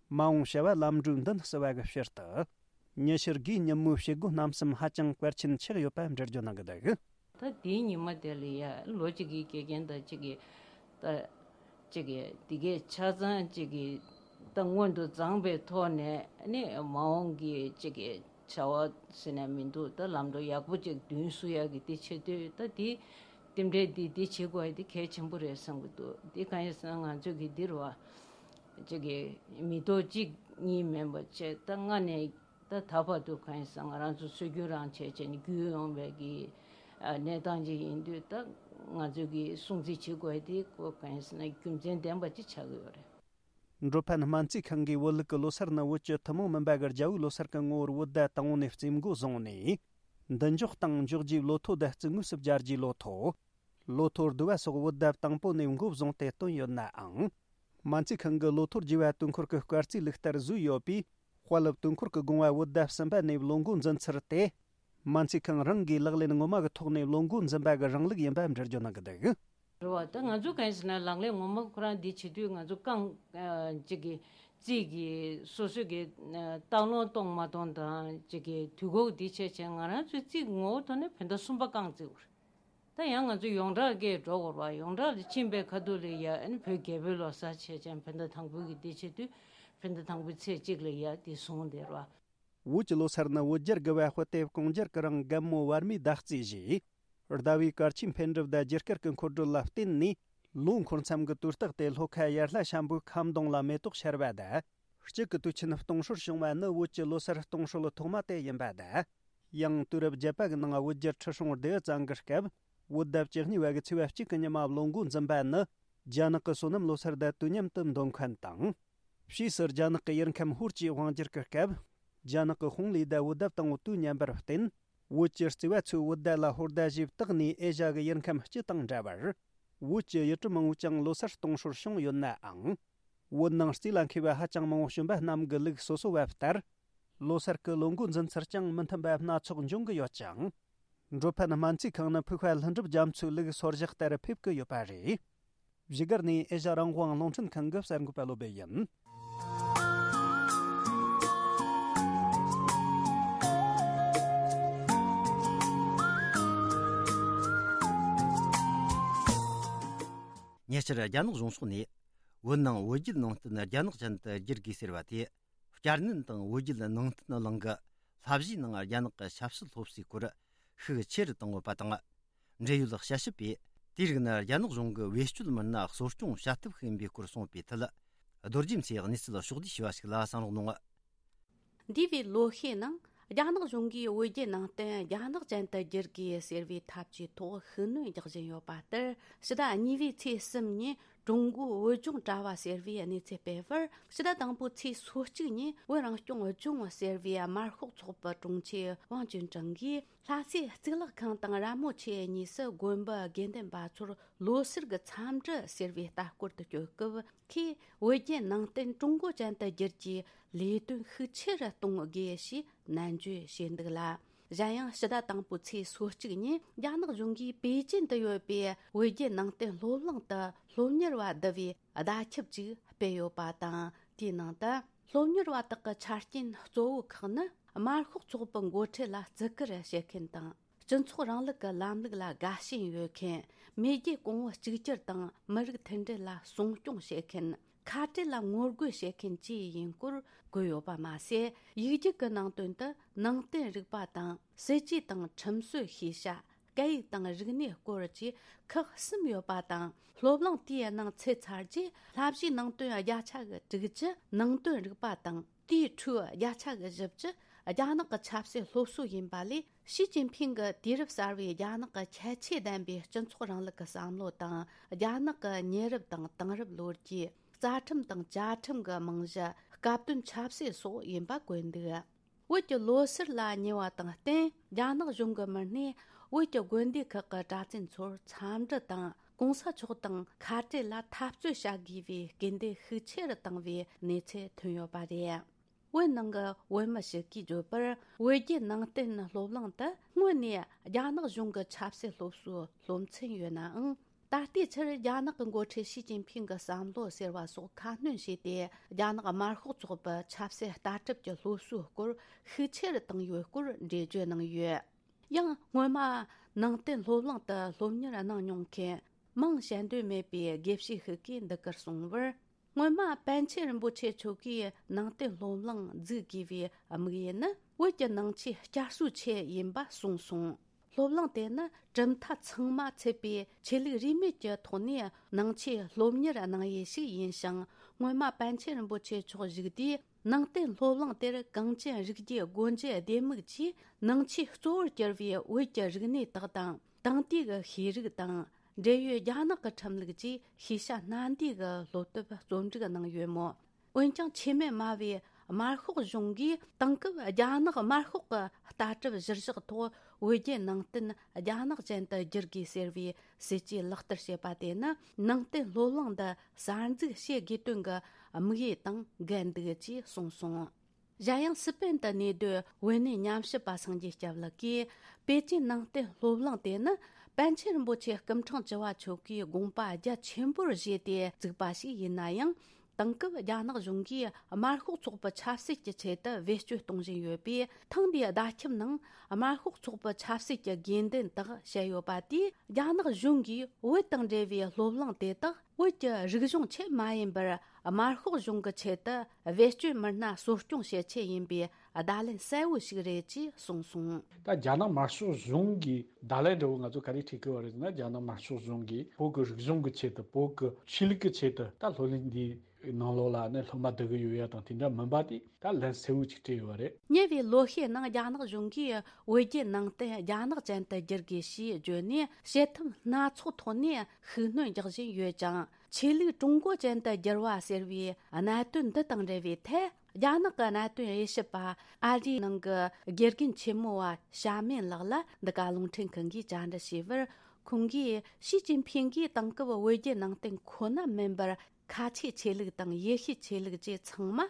མ་འོངས་བྱ་བ་ལམ་འགྲོའི་མདུན་བསུ་བ་གི་ཕྱིར་དུ། ཉི་ཤུ་དགུའི་ཉིན་མོའི་བྱེད་སྒོ་རྣམ་གསུམ་ཧ་ཅང་གལ་ཆེན་ཆགས་ཡོད་པ་འགྲེལ་བརྗོད་གནང་གི་འདུག་ད་དེའི་ཉི་མ་དེ་ལ་ཡ་ལོ་གཅིག་གི་དགེ་རྒན་དང་གཅིག་གི་ད་གཅིག་གི་དེ་གའི་ཆ་ཚང་གཅིག་གི་ད་སྔོན་དུ་བརྫངས་པའི་ཐོག་ནས་ནི་མ་འོངས་ཀྱི་གཅིག་གི་བྱ་བ་ཟེར་ན་མི་འདུག་ད་ལམ་འགྲོ་ཡག་པོ་གཅིག་མདུན་བསུ་ཡག་གི་དེ་བྱེད་དུས། ད་དེ་རྟེན་འབྲེལ་འདི་འདི་བྱེད་དགོས་ཡ་དེ་གལ་ཆེན་པོ་རེད་བསམ་གི་འདུག་དེ་གང་ཡིན་ཟེར་ན་ང་ཚོས་གི་འདིར་བ་གཅིག་གི་མི་ཐོག་གཅིག་གཉིས་མིན་པ་བྱས། ད་སྔ་ནས་ད་ད་བར་དུ་གང་ཡིན་ཟེར་ང་རང་ཚོ་སྲོལ་རྒྱུན་རང་བྱས་བྱས་ནས་བརྒྱུད་ཡོང་བའི་གི་ཨ་གནས་སྟངས་ཅིག་ཡིན་དུས། ད་ང་ཚོས་གི་སྲུང་བརྩི་བྱེད་དགོས་དེ་ཀོ་གང་ཡིན་ཟེར་ན་རྒྱུ་མཚན་ལྡན་པ་ཅིག་ཆགས་ཀྱི་ཡོད་རེད། འགྲོ་ཕན་སྨན་རྩིས་ཁང་གིས་བོད་ལུགས་ཀྱི་ལོ་སར་ནི་བོད་ཀྱི་ཐུན་མོང་མིན་པ་གི་རྒྱལ་པོའི་ལོ་སར་གྱི་ངོ་བོར་བོད་ཟླ་དང་པོ་ནས་རྩིས་འགོ་བཟུང་ནས། མདུན་འཇོག་དང་འཇོག་རྒྱུའི་ལོ་ཐོ་དང་རྩིས་དངོས་སུ་སྦྱར་རྒྱུའི་ལོ་ཐོ། ལོ་ཐོ་བསྡུ་བ་སོགས་བོད་ཟླ་དང་པོ་ནས་འགོ་བཟུང་སྟེ་བཏོན་ཡོད་ནའང་། སྨན་རྩིས་ཁང་གི་ལོ་ཐོ་བསྒྱུར་བ་དུས་འཁོར་གྱི་སྐར་རྩིས་ལུགས་ལྟར་བཟོས་ཡོད་པས། དཔལ་སློབ་དུས་འཁོར་གྱི་དགོངས་པ་བོད་ཟླ་གསུམ་པ་ནས་ལོ་འགོ་འཛིན་ཚུལ་དེ། སྨན་རྩིས་ཁང་རང་གིས་ལག་ལེན་ངོ་མ་གི་ཐོག་ནས་བློ་འགུག་འཛིན་པ་གི་རིང་ལུགས་ཡིན་པ་འགྲེལ་བརྗོད་གནང་གི་འདུག། རེད་བ། ད་ང་ཚོ་གང་ཡིན་ཟེར་ན་ལག་ལེན་ངོ་མ་ཁོ་རང་འདི་བྱེད་དུས་ང་ཚོ་རྐང་ཅིག་གི་རྩིས་ཀྱི་སོ་སོ་གི་ལྟ་ལོང་གཏོང་མ་གཏོང་དང་ཅིག་གི་དུས་འགོག་འདི་བྱས་བྱས་ང་རང་ཚོའི་རྩིས་ངོ་བོ་ཐོག་ནས་བོད་ཟླ་གསུམ་པ་རྐང་བརྩི་དགོས་རེད། ད་ཡང་ང་ཚོ་ཡོངས་གྲགས་ཀྱི་འགྲོ་དགོས་རེད་བ། ཡོངས་གྲགས་ལ་ཕྱིན་པའི་ཁ་ཐུག་ལ་ཡ་ཨ་ནི་བོད་རྒྱལ་པོའི་ལོ་གསར་བྱས་ཙང་བོད་ཟླ་དང་པོའི་གི་འདི་བྱེད་དུས་བོད་ཟླ་དང་པོའི་ཚེས་གཅིག་ལ་ཡ་འདི་བཟུང་བསྡད་རེད་བ། བོད་ཀྱི་ལོ་གསར་ནི་བོད་རྒྱལ་དགུ་བ་དཔེ་དེབ་གུང་རྒྱལ་གྱི་རིང་རྒན་མོ་བར་མའི་ཟླ་རྩིས་བཞེས། ཟླ་བའི་གལ་ཆེའི་འཕེལ་འགྲིབ་དང་རྒྱུ་སྐར་གྱི་འཁོར་སྒྲོལ་ལ་བརྟེན་ནས་ལོ་འཁོར་མཚམས་ཀྱི་དུས་རྟགས་ཏེ་ལྷོ་ཁ་ཡར་ལྷ་ཤམ་བུའི་ཁ་མདུང་ལ་མེ་ཏོག་ཤར་བ་དང་། དཔྱིད་ཀྱི་དུས་ཆེན་སྟོང་སྲོལ་བྱུང་བ་ནི་བོད་ཀྱི་ལོ་གསར་སྟོང་སྲོལ་ཐོག་མ་དེ་ཡིན་པ་དང་། ཡང་དུས་རབས་བརྒྱད་པ་གི་ནང་བོད་རྒྱལ་ཁྲི་སྲོང་ལྡེའུ་བཙན་གྱི་སྐབས་བོད་ཟླ་བཅུ་གཉིས་པ་གི་ཚེས་པ་གཅིག་གི་ཉི་མ་བློ་འགུག་འཛིན་པ་ནི་རྒྱ་ནག་གི་སོ་ནམ་ལོ་གསར་དང་དུས་མཉམ་དུ་འདོན་མཁན་དང་། ཕྱིས་སུ་རྒྱ་ནག་གི་ཡུལ་ཁམས་ཧུར་གྱིས་དབང་བསྒྱུར་གྱི་སྐབས། རྒྱ་ནག་གི་ཧུང་ལི་དང་བོད་ཟླ་དང་པོ་དུས་མཉམ་པར་བརྟེན། བོད་ཀྱི་བརྩེ་བ་ཚོས་བོད་ཟླ་ལ་ཧོར་ཟླ་ཞེས་བཏགས་ནས་ཨེ་ཤ་གི་ཡུལ་ཁམས་སྤྱི་དང་འདྲ་བར། བོད་ཀྱི་ཡུལ་གྲུ་མང་བོས་ཀྱང་ལོ་གསར་སྟོང་སྲོལ་བྱུང་ཡོད་ནའང་། བོད་ནང་རྩིས་ལ་མཁས་པ་ཧ་ཅང་མང་བོ་བྱོན་པ་རྣམས་ཀྱི་ལུགས་སོ་སོ་བ་ལྟར། ལོ་གསར་གྱི་ལོ་འགོ་འཛིན་ཚུལ་ཀྱང་མི་མཐུན་པ་སྣ་ཚོགས་འབྱུང་གི་ཡོད་ཅིང་། འགྲོ་ཕན་སྨན་རྩིས་ཁང་ནི་ཕུགས་པ་ལྷུན་གྲུབ་རྒྱ་མཚོའི་ལུགས་སོར་བཞག་ལྟར་ཕེབས་ཀྱི་ཡོད་པ་རེད། བཞུགས་སྒར་ནས་ཨེ་ཤ་རང་དབང་རླུང་འཕྲིན་ཁང་གི་གསར་འགོད་པ་བློ་སྦེ་ཡིན། ཉེ་ཆར་རྒྱ་ནག་གཞུང་ཕྱོགས་ནས་བོད་ནང་བོད་བརྒྱུད་ནང་བསྟན་རྒྱ་ནག་ཅན་དུ་བསྒྱུར་དགོས་ཟེར་བ་དེ། བསྐྱར་ནན་དང་བོད་བརྒྱུད་ནང་བསྟན་གླིང་གི་བསླབ་གཞིའི་ནང་རྒྱ་ནག་གི་ཆབ་སྲིད་སློབ་གསོའི་སྐོར་ཤུགས་ཆེ་རུ་བཏང་ཡོད་པ་དང་། འབྲེལ་ཡོད་དཔྱད་ཞིབ་པས་དེའི་རིགས་ནི་རྒྱ་ནག་གཞུང་གི་བེད་སྤྱོད་མི་སྣ་གསོ་སྐྱོང་བྱ་ཐབས་ཤིག་ཡིན་པའི་སྐོར་གསུངས་པའི་ཐད། རྡོ་རྗེ་མཚོས་གནས་ཚུལ་ཕྱོགས་བསྡུས་ཞུས་པ་ཞིག་ལ་གསན་རོགས་གནང་། འདས་པའི་ལོ་ཤས་ནང་རྒྱ་ནག་གཞུང་གིས་བོད་བརྒྱུད་ནང་བསྟན་རྒྱ་ནག་ཅན་དུ་བསྒྱུར་དགོས་ཟེར་བའི་ཐབས་ཇུས་ཐོག་ཤུགས་སྣོན་རྒྱག་བཞིན་ཡོད་པ་ལྟར། ཕྱི་ཟླ་གཉིས་པའི་ཚེས་གསུམ་ཉིན་ཀྲུང་གོའི་བོད་ལྗོངས་དྲ་བ་ཟེར་བས་གནས་ཚུལ་སྤེལ་བར། ཕྱི་ཟླ་དང་པོའི་ཚེས་སོ་གཅིག་ཉིན་བོད་རང་སྐྱོང་ལྗོངས་ཟེར་བའི་དམར་ཤོག་ཚོགས་པའི་དྲུང་ཆེ་ཝང་ཅུན་ཀྲང་གིས། ལྷ་སའི་གཙུག་ལག་ཁང་དང་ར་མོ་ཆེ་གཉིས་སུ་དགོན་པའི་དགེ་འདུན་པ་ཚོར་ལོ་གསར་གྱི་འཚམས་འདྲི་ཟེར་བའི་ལྟ་སྐོར་དུ་བསྐྱོད་སྐབས། ཁོས་བོད་བརྒྱུད་ནང་བསྟན་ཀྲུང་གོ་ཅན་དུ་བསྒྱུར་རྒྱུའི་ལས་དོན་ཤུགས་ཆེ་རུ་གཏོང་དགོས་ཞེས་ནན་བརྗོད་བྱས་འདུག་ལ། གཞན་ཡང་ཕྱི་ཟླ་དང་པོའི་ཚེས་སོ་གཅིག་ཉིན་རྒྱ་ནག་གཞུང་གིས་པེ་ཅིན་དུ་ཡོད་པའི་བོད་བརྒྱུད་ནང་བསྟན་སློབ་གླིང་དུ་སློབ་གཉེར་བ་བསྡུ་བའི་བརྡ་ཁྱབ་ཅིག་སྤེལ་ཡོད་པ་དང་། དེའི་ནང་དུ་སློབ་གཉེར་བ་དག་གི་ཆ་རྐྱེན་གཙོ་བོ་ཁག་ནི། དམར་ཤོག་ཚོགས་པའི་འགོ་ཁྲིད་ལ་བརྩི་བཀུར་བྱེད་མཁན་དང་། སྤྱི་ཚོགས་རིང་ལུགས་ཀྱི་ལམ་ལུགས་ལ་དགའ་ཞེན་ཡོད་མཁན། མེས་རྒྱལ་གོང་བུ་གཅིག་གྱུར་དང་མི་རིགས་མཐུན་སྒྲིལ་ལ་སྲུང་སྐྱོང་བྱེད་མཁན། ཁ་བྲལ་ལ་ངོ་རྒོལ་བྱེད་མཁན་བཅས་ཡིན་སྐོར་བཀོད་ཡོད་པ་མ་ཟད། ཡིག་རྒྱུགས་ཀྱི་ནང་དོན་དུ་ནང་བསྟན་རིག་པ་དང་། སྲིད་ཇུས་དང་ཁྲིམས་སྲོལ་ཤེས་བྱ། སྐད་ཡིག་དང་རིག་གནས་སྐོར་བཅས་ཁག་གསུམ་ཡོད་པ་དང་། སློབ་གླིང་དེའི་ནང་ཚུད་ཚར་རྗེས་བསླབ་གཞིའི་ནང་དོན་བརྒྱ་ཆ་གི་དྲུག་ཅུ། ནང་དོན་རིག་པ་དང་། དེའི་ཁྲོད་བརྒྱ་ཆ་གི་བཞི་བཅུ་རྒྱ་ནག་གི་ཆབ་སྲིད་སློབ་གསོ་ཡིན་པ་ལས། ཞི་ཅིན་ཕིང་གི་དུས་རབས་གསར་བའི་རྒྱ་ནག་གི་ཁྱད་ཆོས་ལྡན་པའི་སྤྱི་ཚོགས་རིང་ལུགས་ཀྱི་བསམ་བློ་དང་། རྒྱ་ནག་གི་ཉེ་རབས་དང་དེང་རབས་ལོ་རྒྱུས། རྩ་ཁྲིམས་དང་བཅའ་ཁྲིམས་ཀྱི་རྨང་གཞི། སྐབས་བསྟུན་ཆབ་སྲིད་སོགས་ཡིན་པ་བཀོད་འདུག། བོད་ཀྱི་ལོ་གསར་ལ་ཉེ་བ་དང་བསྟུན། རྒྱ་ནག་གཞུང་གི་མི་སྣས་བོད་ཀྱི་དགོན་སྡེ་ཁག་གི་གྲྭ་བཙུན་ཚོར་འཚམས་འདྲི་དང་། གོང་ས་མཆོག་དང་ཁ་བྲལ་ལ་འཐབ་རྩོད་བྱ་དགོས་པའི་སྐུལ་འདེད་ཤུགས་ཆེ་རུ་བཏང་བའི་གནས་ཚུལ་ཐོན་ཡོད་པ་རེད། བོད་ནང་གི་བོད་མི་ཞིག་གིས་བརྗོད་པར། བོད་བརྒྱུད་ནང་བསྟན་སློབ་གླིང་དུ་སྔོན་ནས་རྒྱ་ནག་གཞུང་གི་ཆབ་སྲིད་སློབ་གསོའི་སློབ་ཚན་ཡོད་ནའང་། ད་ལྟའི་ཆར་རྒྱ་ནག་གི་འགོ་ཁྲིད་ཞི་ཅིན་ཕིང་གི་བསམ་བློ་ཟེར་བ་སོགས་ཁ་སྣོན་བྱས་ཏེ། རྒྱ་ནག་དམར་ཤོག་ཚོགས་པའི་ཆབ་སྲིད་ལྟ་གྲུབ་ཀྱི་སློབ་གསོའི་སྐོར་ཤུགས་ཆེ་རུ་བཏང་ཡོད་སྐོར་འགྲེལ་བརྗོད་གནང་ཡོད། ཡང་སྔོན་མ་ནང་བསྟན་སློབ་གླིང་དུ་སློབ་གཉེར་གནང་མྱོང་མཁན་མིང་བཤད་འདོད་མེད་པའི་དགེ་བཤེས་ཤིག་གིས་འདི་གར་གསུངས་པར། སྔོན་མ་པཎ་ཆེན་རིན་པོ་ཆེ་མཆོག་གིས་ནང་བསྟན་སློབ་གླིང་འཛུགས་དགོས་པའི་དམིགས་ཡུལ་ནི། བོད་ཀྱི་ནང་ཆོས་བསྐྱར་གསོའི་ཆེད་ཡིན་པ་གསུངས་སོང་། སློབ་གླིང་དེ་ནི་གྲུབ་མཐའ་ཚང་མ་ཚུད་པའི་ཆོས་ལུགས་རིས་མེད་ཀྱི་ཐོག་ནས་ནང་ཆོས་སློབ་གཉེར་གནང་ཡུལ་ཞིག་ཡིན་ཞིང་། སྔོན་མ་པཎ་ཆེན་རིན་པོ་ཆེ་མཆོག་བཞུགས་དུས། ནང་བསྟན་སློབ་གླིང་དེར་གངས་ཅན་རིག་རྒྱུད་སྒོ་འབྱེད་ལྡེ་མིག་ཅེས་ནང་ཆོས་གཙོ་བོར་གྱུར་བའི་བོད་ཀྱི་རིག་གནས་དག་དང་། དེང་དུས་ཀྱི་ཤེས་རིག་དང་། འབྲེལ་ཡོད་རྒྱ་ནག་གི་ཁྲིམས་ལུགས་བཅས་ཤེས་བྱ་སྣ་འདུས་ཀྱི་སློབ་དེབ་རྩོམ་སྒྲིག་གནང་ཡོད་མོད། འོན་ཀྱང་ཆེས་སྨན་སྨྲ་བའི་དམར་ཤོག་གཞུང་གིས་དེང་སྐབས་རྒྱ་ནག་དམར་ཤོག་གི་ལྟ་གྲུབ་གཞིར་བཞག་ཐོག་བོད་བརྒྱུད་ནང་བསྟན་རྒྱ་ནག་ཅན་དུ་བསྒྱུར་དགོས་ཟེར་བའི་སྲིད་ཇུས་ལག་བསྟར་བྱེད་པ་དེ་ནི་ནང་བསྟན་སློབ་གླིང་འདི་གསར་འཛུགས་བྱེད་དགོས་དོན་གྱི་དམིགས་ཡུལ་དང་འགལ་འདུག་ཅེས་གསུངས་སོང་། གཞན་ཡང་སི་པེན་དུ་གནས་སྡོད་བོད་གནས་ཉམས་ཞིབ་པ་སངས་རྒྱས་སྐྱབས་ལགས་ཀྱིས། པེ་ཅིན་ནང་བསྟན་སློབ་གླིང་དེ་ནི་པཎ་ཆེན་རིན་པོ་ཆེ་སྐུ་ཕྲེང་བཅུ་བ་མཆོག་གིས་དགོངས་པ་རྒྱ་ཆེན་པོར་བཞེས་ཏེ་བཙུགས་པ་ཞིག་ཡིན་ན་ཡང་། དེང་སྐབས་རྒྱ་ནག་གཞུང་གིས་དམར་ཤོག་ཚོགས་པ་ཆབ་སྲིད་ཀྱི་ཆེད་དུ་བེད་སྤྱོད་གཏོང་བཞིན་ཡོད་པས། ཐེངས་འདིའི་བརྡ་ཁྱབ་ནང་དམར་ཤོག་ཚོགས་པ་ཆབ་སྲིད་ཀྱི་དགོས་འདུན་དག་བཤད་ཡོད་པ་དེས། རྒྱ་ནག་གཞུང་གིས་བོད་དང་འབྲེལ་བའི་སློབ་གླིང་དེ་དག་བོད་ཀྱི་རིག་གཞུང་ཆེད་མ་ཡིན་པར། དམར་ཤོག་གཞུང་གི་ཆེད་དུ་བེད་སྤྱོད་མི་སྣ་གསོ་སྐྱོང་བྱེད་ཆེད་ཡིན་པའི་བརྡ་ལན་གསལ་བོ་ཞིག་རེད་ཅེས་གསུངས་སོང་། ད་རྒྱ་ནག་དམར་ཤོག་གཞུང་གིས་བརྡ་ལན་འདྲ་བོ་ང་ཚོ་ག་རེ་འཕྲད་ཀྱི་ཡོད་རེད་ཟེར་ན། རྒྱ་ནག་དམར་ཤོག་གཞུང་གིས་བོད་ཀྱི་རིག་གཞུང་གི་ཆེད་དུ། བོད་ཀྱི་ཆོས་ལུགས་ཀྱི་ཆེད་དུ་ད་སློབ་གླིང་འདིའི་ནང་ལོགས་ལ་ནི་སློབ་མ་བསྡུ་གི་ཡོད་ཡ་དང་དེ་འདྲ་མིན་པ་དེ་ད་ལན་གསལ་བོ་ཅིག་སྤྲད་ཡོད་རེད། ཉེ་བའི་ལོ་ཤས་ནང་རྒྱ་ནག་གཞུང་གིས་བོད་བརྒྱུད་ནང་བསྟན་རྒྱ་ནག་ཅན་དུ་བསྒྱུར་དགོས་ཞེས་བརྗོད་ནས། བྱེད་ཐབས་སྣ་ཚོགས་ཐོག་ནས་ཤུགས་སྣོན་རྒྱག་བཞིན་ཡོད་ཅིང་། ཆོས་ལུགས་ཀྲུང་གོ་ཅན་དུ་བསྒྱུར་བ་ཟེར་བའི་གནད་དོན་འདི་དང་འབྲེལ་བའི་ཐད། རྒྱ་ནག་གི་གནད་དོན་དབྱེ་ཞིབ་པ། ཨ་རིའི་ནང་གི་དགེ་རྒན་ཆེན་མོ་བ་ཞྭ་མེན་ལགས་ལ་འདི་ག་རླུང་འཕྲིན་ཁང་གིས་བཅར་འདྲི་བྱས་པར། ཁོང་གིས་ཞི་ཅིན་ཕིང་གིས་དེང་སྐབས་བོད་བརྒྱུད་ནང་བསྟན་ཁོ་ན་མིན་པར། ཁ་ཆེའི་ཆོས་ལུགས་དང་ཡེ་ཤུའི་ཆོས་ལུགས་བཅས་ཚང་མ་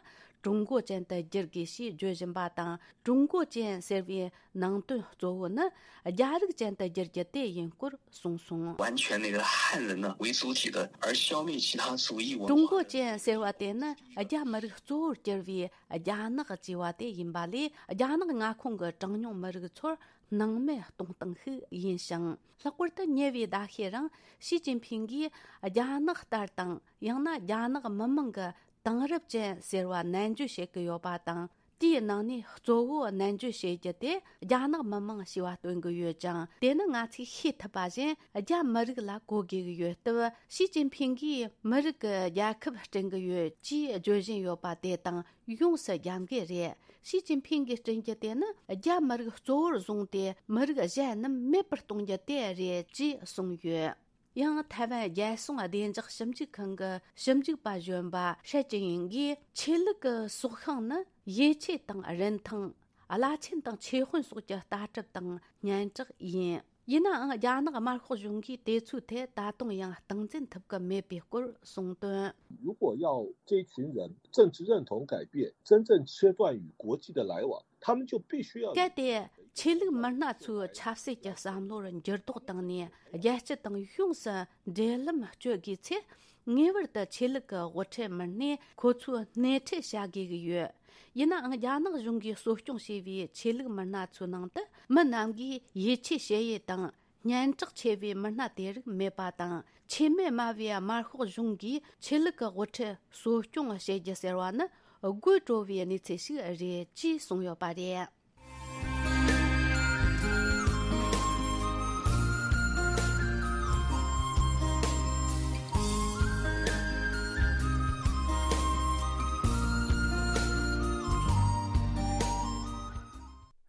ཀྲུང་གོ་ཅན་དུ་བསྒྱུར་དགོས་ཞེས་བརྗོད་བཞིན་པ་དང་། ཀྲུང་གོ་ཅན་ཟེར་བའི་ནང་དོན་གཙོ་བོ་ནི་རྒྱ་རིགས་ཅན་དུ་བསྒྱུར་རྒྱུ་དེ་ཡིན་སྐོར་གསུངས་སོང་། 完全那个汉人呢为主体的，而消灭其他族裔文化的 ཀྲུང་གོ་ཅན་ཟེར་བ་དེ་ནི་རྒྱ་མི་རིགས་གཙོ་བོར་གྱུར་བའི་རྒྱ་ནག་ཅེས་པ་དེ་ཡིན་པ་ལས། རྒྱ་ནག་མངའ་ཁོངས་ཀྱི་གྲངས་ཉུང་མི་རིགས་ཚོར་སྣང་མེད་གཏོང་སྟངས་ཤིག་ཡིན་ཞིང་། ལྷག་པར་དུ་ཉེ་བའི་ཟླ་ཤས་རིང་ཞི་ཅིན་ཕིང་གིས་རྒྱ་ནག་ལྟར་དང་། ཡང་ན་རྒྱ་ནག་མི་དམངས་ཀྱི་དེང་རབས་ཅན་ཟེར་བ་ནན་བརྗོད་བྱེད་ཀྱི་ཡོད་པ་དང་། དེའི་ནང་ནས་གཙོ་བོ་ནན་བརྗོད་བྱེད་རྒྱུ་དེ་རྒྱ་ནག་མི་དམངས་ཞེས་པ་སྟོན་གྱི་ཡོད་ཅིང་། དེ་ནི་ང་ཚོས་ཤེས་ཐུབ་པ་བཞིན་རྒྱ་མི་རིགས་ལ་གོ་དགོས་ཀྱི་ཡོད་སྟབས། ཞི་ཅིན་ཕིང་གིས་མི་རིགས་ཀྱི་རྒྱལ་ཁབ་བསྐྲུན་གྱི་ཡོད་ཅེས་བརྗོད་བཞིན་ཡོད་པ་དེ་དང་ཡོངས་སུ་རྒྱབ་འགལ་རེད། ཞི་ཅིན་ཕིང་གིས་བསྐྲུན་རྒྱུ་དེ་ནི་རྒྱ་མི་རིགས་གཙོ་བོར་བཟུང་སྟེ་མི་རིགས་གཞན་རྣམས་མེད་པར་གཏོང་རྒྱུ་དེ་རེད་ཅེས་གསུངས་ཡོད། ཡང་ཐའེ་ཝན་རྒྱལ་སྲུང་བདེ་འཇགས་ཞིབ་འཇུག་ཁང་གི་ཞིབ་འཇུག་པ་གཞོན་པ་ཧྲེ་ཅི་ཡིང་གིས། ཆོས་ལུགས་ཀྱི་སྲོག་ཤིང་ནི་ཡིད་ཆེས་དང་རིན་ཐང་། བླ་ཆེན་དང་ཆོས་དཔོན་སོགས་ཀྱི་ལྟ་གྲུབ་དང་སྙན་གྲགས་ཡིན། ཡིན་ནའང་རྒྱ་ནག་དམར་ཤོག་གཞུང་གིས་དེ་ཚོའི་ཐད་ད་དུང་ཡང་སྟངས་འཛིན་ཐུབ་ཀྱི་མེད་པའི་སྐོར་གསུངས་དོན། 如果要这群人政治认同改变，真正切断与国际的来往，他们就必须要 གལ་ཏེ་ཆོས་ལུགས་མི་སྣ་ཚོའི་ཆབ་སྲིད་ཀྱི་བསམ་བློར་འགྱུར་ལྡོག་བཏང་ནས། རྒྱལ་སྤྱི་དང་ཡོངས་སུ་འབྲེལ་ལམ་གཅོད་དགོས་ཚེ། ངེས་པར་དུ་ཆོས་ལུགས་ཀྱི་དབུ་ཁྲིད་མི་སྣས་ཁོ་ཚོའི་སྣེ་ཁྲིད་བྱ་དགོས་ཀྱི་ཡོད། ཡིན་ནའང་རྒྱ་ནག་གཞུང་གིས་གསོ་སྐྱོང་བྱས་པའི་ཆོས་ལུགས་མི་སྣ་ཚོའི་ནང་དུ་མི་རྣམས་ཀྱིས་ཡིད་ཆེས་བྱེད་ཡུལ་དང་། སྙན་གྲགས་ཆེ་བའི་མི་སྣ་དེ་རིགས་མེད་པ་དང་། ཆེས་མེད་དམའ་བའི་དམར་ཤོག་གཞུང་གིས་ཆོས་ལུགས་ཀྱི་དབུ་ཁྲིད་གསོ་སྐྱོང་བྱེད་རྒྱུ་ཟེར་བ་ནི་དགོད་བྲོ་བའི་གནས་ཚུལ་ཞིག་རེད་ཅེས་གསུངས་ཡོད་པ་རེད།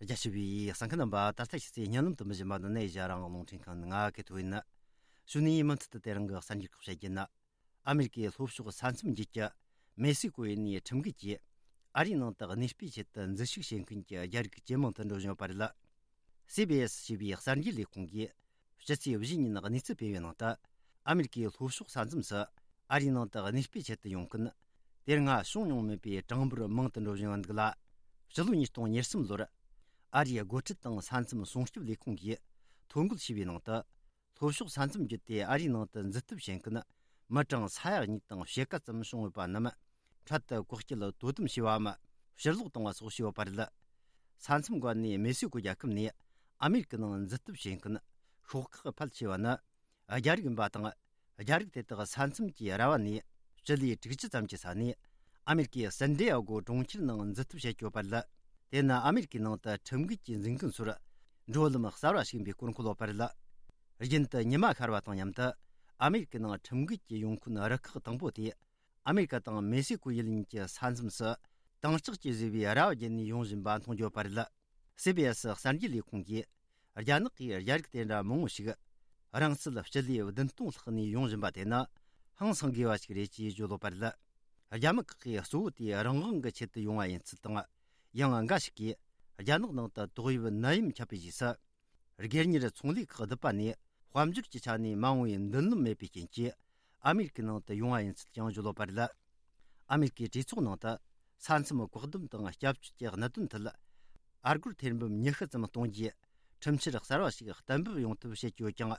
རྒྱ་ཆེ་བའི་གསན་མཁན་རྣམ་པ། ད་ལྟ་ཕྱི་ཚེས་བརྙན་ལམ་དུ་མི་བཞིན་པ་འདི་ནས་ཡ་རང་རླུང་འཕྲིན་ཁང་ནས་ང་གི་ཐོ་ཡིན། གཞུག་ནས་མུ་མཐུད་དུ་དེ་རིང་གི་གསར་འགྱུར་ཁག་བཤད་རྒྱུ་ན། ཨ་མེ་རི་ཀའི་ལྷོ་ཕྱོགས་ས་མཚམས་རྒྱུད་ཀྱི་མེག་སི་ཀོ་ཡུལ་ནས་ཁྲིམས་འགལ་གྱིས་ཨ་རིའི་ནང་དུ་གནས་སྤོས་ཆེད་དུ་འཛུལ་ཞུགས་བྱེད་མཁན་གྱི་རྒྱ་རིགས་ཇེ་མང་དུ་འགྲོ་བཞིན་ཡོད་པ་རེད། སི་བི་ཨེས་ཞེས་པའི་གསར་འགྱུར་ལས་ཁུངས་ཀྱིས་ཕྱི་ཚེས་བཞི་ཉིན་གནས་ཚུལ་སྤེལ་བའི་ནང་དུ། ཨ་མེ་རི་ཀའི་ལྷོ་ཕྱོགས་ས་མཚམས་སུ་ཨ་རིའི་ནང་དུ་གནས་སྤོས་ཆེད་དུ་ཡོང་མཁན་དེ་སྔ་བྱུང་མྱོང་མེད་པའི་གྲངས་འབོར་མང་དུ་འགྲོ་བཞིན་ཡོད་འདུག་ལ། ཕྱི་ལོ་ཉིས་སྟོང་ཉེར་གསུམ་ལོར་ཨ་རིའི་སྒོ་ཁྲལ་དང་ས་མཚམས་སྲུང་སྐྱོབ་ལས་ཁུངས་ཀྱིས་ཐོ་འགོད་བྱས་པའི་ནང་དུ། ལྷོ་ཕྱོགས་ས་མཚམས་བརྒྱུད་དེ་ཨ་རིའི་ནང་དུ་འཛུལ་ཐབས་བྱེད་མཁན་མི་གྲངས་ས་ཡ་གཉིས་དང་ཕྱེད་ཀ་ཙམ་བྱུང་ཡོད་པ་རྣམས་འཕྲལ་དུ་བཀག་སྐྱིལ་དོ་དམ་བྱས་པའམ་ཕྱིར་ལོག་བཏང་བ་སོགས་བྱས་ཡོད་པ་རེད། ས་མཚམས་འགོ་ནས་མེག་སི་ཀོ་རྒྱལ་ཁབ་ནས་ཨ་མེ་རི་ཀའི་ནང་འཛུལ་ཐབས་བྱེད་མཁན་ཤོག་ཁག་ཕལ་ཆེ་བ་ནི་རྒྱ་རིགས་ཡིན་པ་དང་། རྒྱ་རིགས་དེ་དག་ས་མཚམས་ཀྱི་ར་བ་ནས་སྤྱི་ལེ་དྲུག་ཅུ་ཙམ་གྱི་ས་ནས་ཨ་མེ་རི་ཀའི་སན་ཌི་ཡ་གོ་གྲོང་ཁྱེར་ནང་འཛུལ་ཐབས་བྱེད་ཀྱི་ཡོད་པ་རེད། དེ་ནི་ཨ་མེ་རི་ཀའི་ནང་དུ་ཁྲིམས་འགལ་གྱིས་འཛིན་མཁན་ཚོར་འགྲོ་ལམ་གསར་བ་ཞིག་ཡིན་པའི་སྐོར་འཁོད་ཡོད་པ་རེད། རྒྱུན་དུ་ཉི་མ་ཤར་བ་དང་མཉམ་དུ་ཨ་མེ་རི་ཀའི་ནང་ཁྲིམས་འགལ་གྱིས་ཡོང་མཁན་རུ་ཁག་དང་པོ་དེ་ཨ་མེ་རི་ཀ་དང་མེག་སི་ཀོ་ཡུལ་གཉིས་ཀྱི་ས་མཚམས་སུ་དྭངས་ལྕགས་ཀྱིས་བཟོས་པའི་ར་བ་བརྒྱུད་ནས་ཡོང་བཞིན་པ་མཐོང་རྒྱུ་ཡོད་པ་རེད། སི་བི་ཨེ་སི་གསར་འགྱུར་ལས་ཁུངས་ཀྱིས་རྒྱ་ནག་གིས་རྒྱ་རིགས་དེ་འདྲ་མང་བོ་ཞིག་རིང་ཚད་སྤྱི་ལེ་བདུན་སྟོང་ལྷག་ནས་ཡོང་བཞིན་པ་དེ་ནི་ཧང་སང་དགོས་པ་ཞིག་རེད་ཅེས་བརྗོད་ཡོད་པ་རེད། རྒྱ་མི་ཁག་གིས་གཙོ་བོ་དེ་རང་དབང་གི་ཆེད་དུ་ཡོང་བ་ཡིན་ཚུལ་དང་། ཡང་འགའ་ཞིག་གིས་རྒྱ་ནག་ནང་དུ་ཏོག་དབྱིབས་ནད་ཡམས་ཁྱབ་པའི་རྗེས་སུ། སྒེར་གཉེར་ཚོང་ལས་ཁག་བསྡུས་པ་ནས་དཔལ་འབྱོར་གྱི་ཆ་ནས་མ་འོངས་པའི་མདུན་ལམ་མེད་པའི་རྐྱེན་གྱིས་ཨ་མེ་རི་ཀའི་ནང་དུ་ཡོང་བ་ཡིན་ཚུལ་ཀྱང་བརྗོད་ཡོད་པ་རེད། ཨ་མེ་རི་ཀའི་གྲོས་ཚོགས་ནང་དུ་ ས་མཚམས་བཀག་སྡོམ་དང་སྐྱབས་བཅོལ་གྱི་གནད་དོན་ཐད། ཨ་སྒོར་ཐེར་འབུམ་ཉི་ཤུ་ཙམ་གཏོང་རྒྱུའི་ཁྲིམས་འཆར་གསར་བ་ཞིག་གཏན་འབེབས་ཡོང་ཐབས་བྱེད་ཀྱི་ཡོད་ཀྱང་།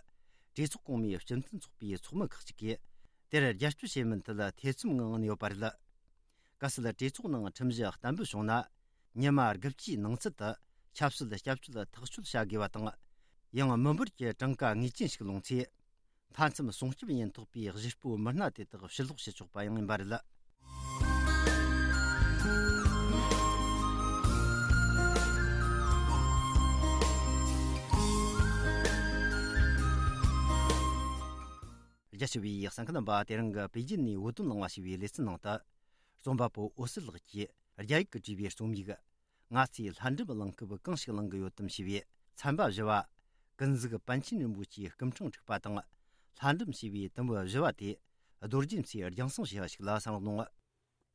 གྲོས་ཚོགས་གོང་མའི་སྤྱི་མཐུན་ཚོགས་པའི་ཚོགས་མི་ཁག་ཅིག་གིས་དེར་རྒྱབ་སྐྱོར་བྱེད་མིན་ཐད་ཐེ་ཚོམ་ངང་ཡོད་པ་རེད། གལ་སྲིད་གྲོས་ཚོགས་ནང་ཁྲིམས་གཞི་གཏན་འབེབས་བྱུང་ན། ཉི་མ་དགུ་བཅུའི་ནང་ཚུད་དུ་ཆབ་སྲིད་སྐྱབས་བཅོལ་ཐག་གཅོད་བྱ་དགོས་པ་དང་། ཡང་མི་འབོར་གྱི་གྲངས་ཀ་ངེས་ཅན་ཞིག་ལོངས་ཚེ། མཐའ་མཚམས་སྲུང་སྐྱོབ་ཉེན་རྟོག་པའི་གཞིས་སྤོ་མི་སྣ་དེ་དག་ཕྱིར་ལོག་བྱེད་ཆོག་པ་ཡང་ཡིན་པ་རེད། རྒྱ་ཆེ་བའི་གསན་མཁན་རྣམ་པ། དེ་རིང་གི་པེ་ཅིན་ནས་བོད་དོན་གླེང་བ་ཞེས་པའི་ལེ་ཚན་ནང་དུ། རྩོམ་པ་པོ་འོད་ཟེར་ལགས་ཀྱིས་རྒྱ་ཡིག་གིས་བྲིས་པའི་རྩོམ་ཡིག་ང་ཚོས་ལྷ་འབྲུམ་གླེང་སྐབས་གང་ཞིག་གླེང་གི་ཡོད་དམ་ཞེས་པའི་ཚན་པ་བཞི་བ། ཀུན་གཟིགས་པཎ་ཆེན་རིན་པོ་ཆེའི་སྐུ་ཕྲེང་དྲུག་པ་དང་། ལྷ་འབྲུམ་ཞེས་པའི་དུམ་བུ་བཞི་བ་དེ། རྡོ་རྗེ་མཚོས་རྒྱང་སྲིང་བྱས་པ་ཞིག་ལ་གསན་རོགས་གནང་།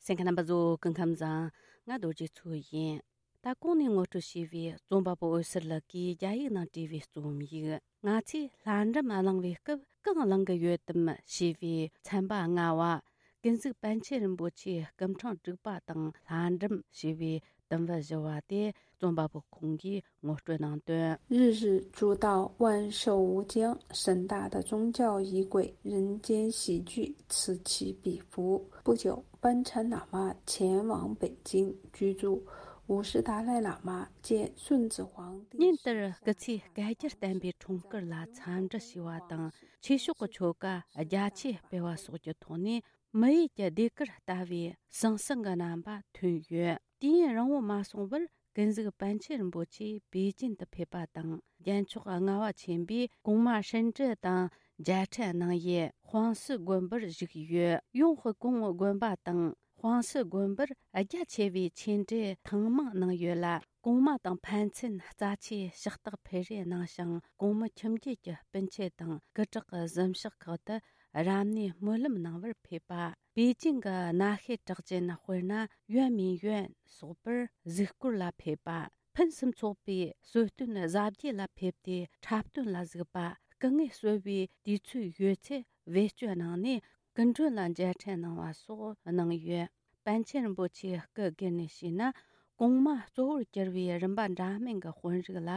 གསན་མཁན་རྣམ་པ་ཚོ། སྐུ་ཁམས་བཟང་། ང་རྡོ་རྗེ་མཚོ་ཡིན། ད་གོང་ནས་ངོ་སྤྲོད་བྱས་པའི་རྩོམ་པ་པོ་འོད་ཟེར་ལགས་ཀྱིས་རྒྱ་ཡིག་ནང་བྲིས་པའི་རྩོམ་ཡིག་ང་ཚོས་ལྷ་འབྲུམ་གླེང་བའི་སྐབས་གང་གླེང་གི་ཡོད་དམ་ཞེས་པའི་ཚན་པ་ལྔ་བ། ཀུན་གཟིགས་པཎ་ཆེན་རིན་པོ་ཆེའི་སྐུ་ཕྲེང་དྲུག་པ་དང་ལྷ་འབྲུམ་ཞེས་པའི་དུམ་བུ་བཞི་བ་དེ་རྩོམ་པ་པོ་ཁོང་གིས་ངོ་སྤྲོད་གནང་དོན། 日日诸道万寿无疆，盛大的宗教仪轨，人间喜剧此起彼伏。不久，班禅喇嘛前往北京居住。五世达赖喇嘛见顺治皇帝 ཉིན་ལྟར་སྐུ་ཚེ་བསྐལ་བརྒྱར་བརྟན་པའི་འཁྲུངས་སྐར་ལ་འཚམས་འདྲི་ཞུས་པ་དང་། ཆོས་ཕྱོགས་ཀྱི་ཆོ་ག་རྒྱ་ཆེ་སྤེལ་བ་སོགས་ཀྱི་ཐོག་ནས། མི་ཡུལ་གྱི་ཟློས་གར་ལྟ་བུའི་ཟང་ཟིང་གི་རྣམ་པ་ཐོན་ཡོད། དུས་ཡུན་རིང་བོ་མ་སོང་བར་ཀུན་གཟིགས་པཎ་ཆེན་རིན་པོ་ཆེ་པེ་ཅིན་དུ་ཕེབས་པ་དང་། རྒྱལ་མཆོག་ལྔ་པ་ཆེན་པོས་གོང་མ་ཧྲིན་ཀྲི་དང་མཇལ་འཕྲད་གནང་ཡུལ་ཧྥང་སི་དགོན་པར་བཞུགས་ཡོད། ཡོང་ཧི་གུང་དགོན་པ་དང་ཧྥང་སི་དགོན་པར་རྒྱ་ཆེ་བའི་ཆོས་འབྲེལ་ཐེངས་མང་གནང་ཡོད་ལ། གོང་མ་དང་ཕན་ཚུན་རྩ་ཆེའི་ཕྱག་རྟགས་འཕུར་རེས་གནང་ཞིང་། གོང་མ་ཁྱིམ་རྒྱུད་ཀྱི་སྤུན་མཆེད་དང་སྐུ་དྲག་གི་གཟིམ་ཤག་ཁག་ཏུ་རབ་གནས་སྨོན་ལམ་གནང་བར་ཕེབས་པ། པེ་ཅིང་གི་གནའ་ཤུལ་གྲགས་ཅན་དཔེར་ན་ཡོན་མིན་ཡོན་སོགས་པར་གཟིགས་སྐོར་ལ་ཕེབས་པ། ཕུན་སུམ་ཚོགས་པའི་གསོལ་སྟོན་གཟབ་རྒྱས་ལ་ཕེབས་ཏེ་འཁྲབ་སྟོན་ལ་གཟིགས་པ། སྐུ་ངལ་གསོ་བའི་དུས་ཚོད་ཡོད་ཚེ་བེད་སྤྱོད་གནང་ནས། སྐུ་མགྲོན་ལ་མཇལ་འཕྲད་གནང་བ་སོགས་གནང་ཡོད། པཎ་ཆེན་རིན་པོ་ཆེའི་སྐུ་སྒེར་ནས་བཤད་ན། གོང་མ་གཙོ་བོར་གྱུར་པའི་རིམ་པ་འདྲ་མིན་གྱི་དཔོན་རིགས་ལ་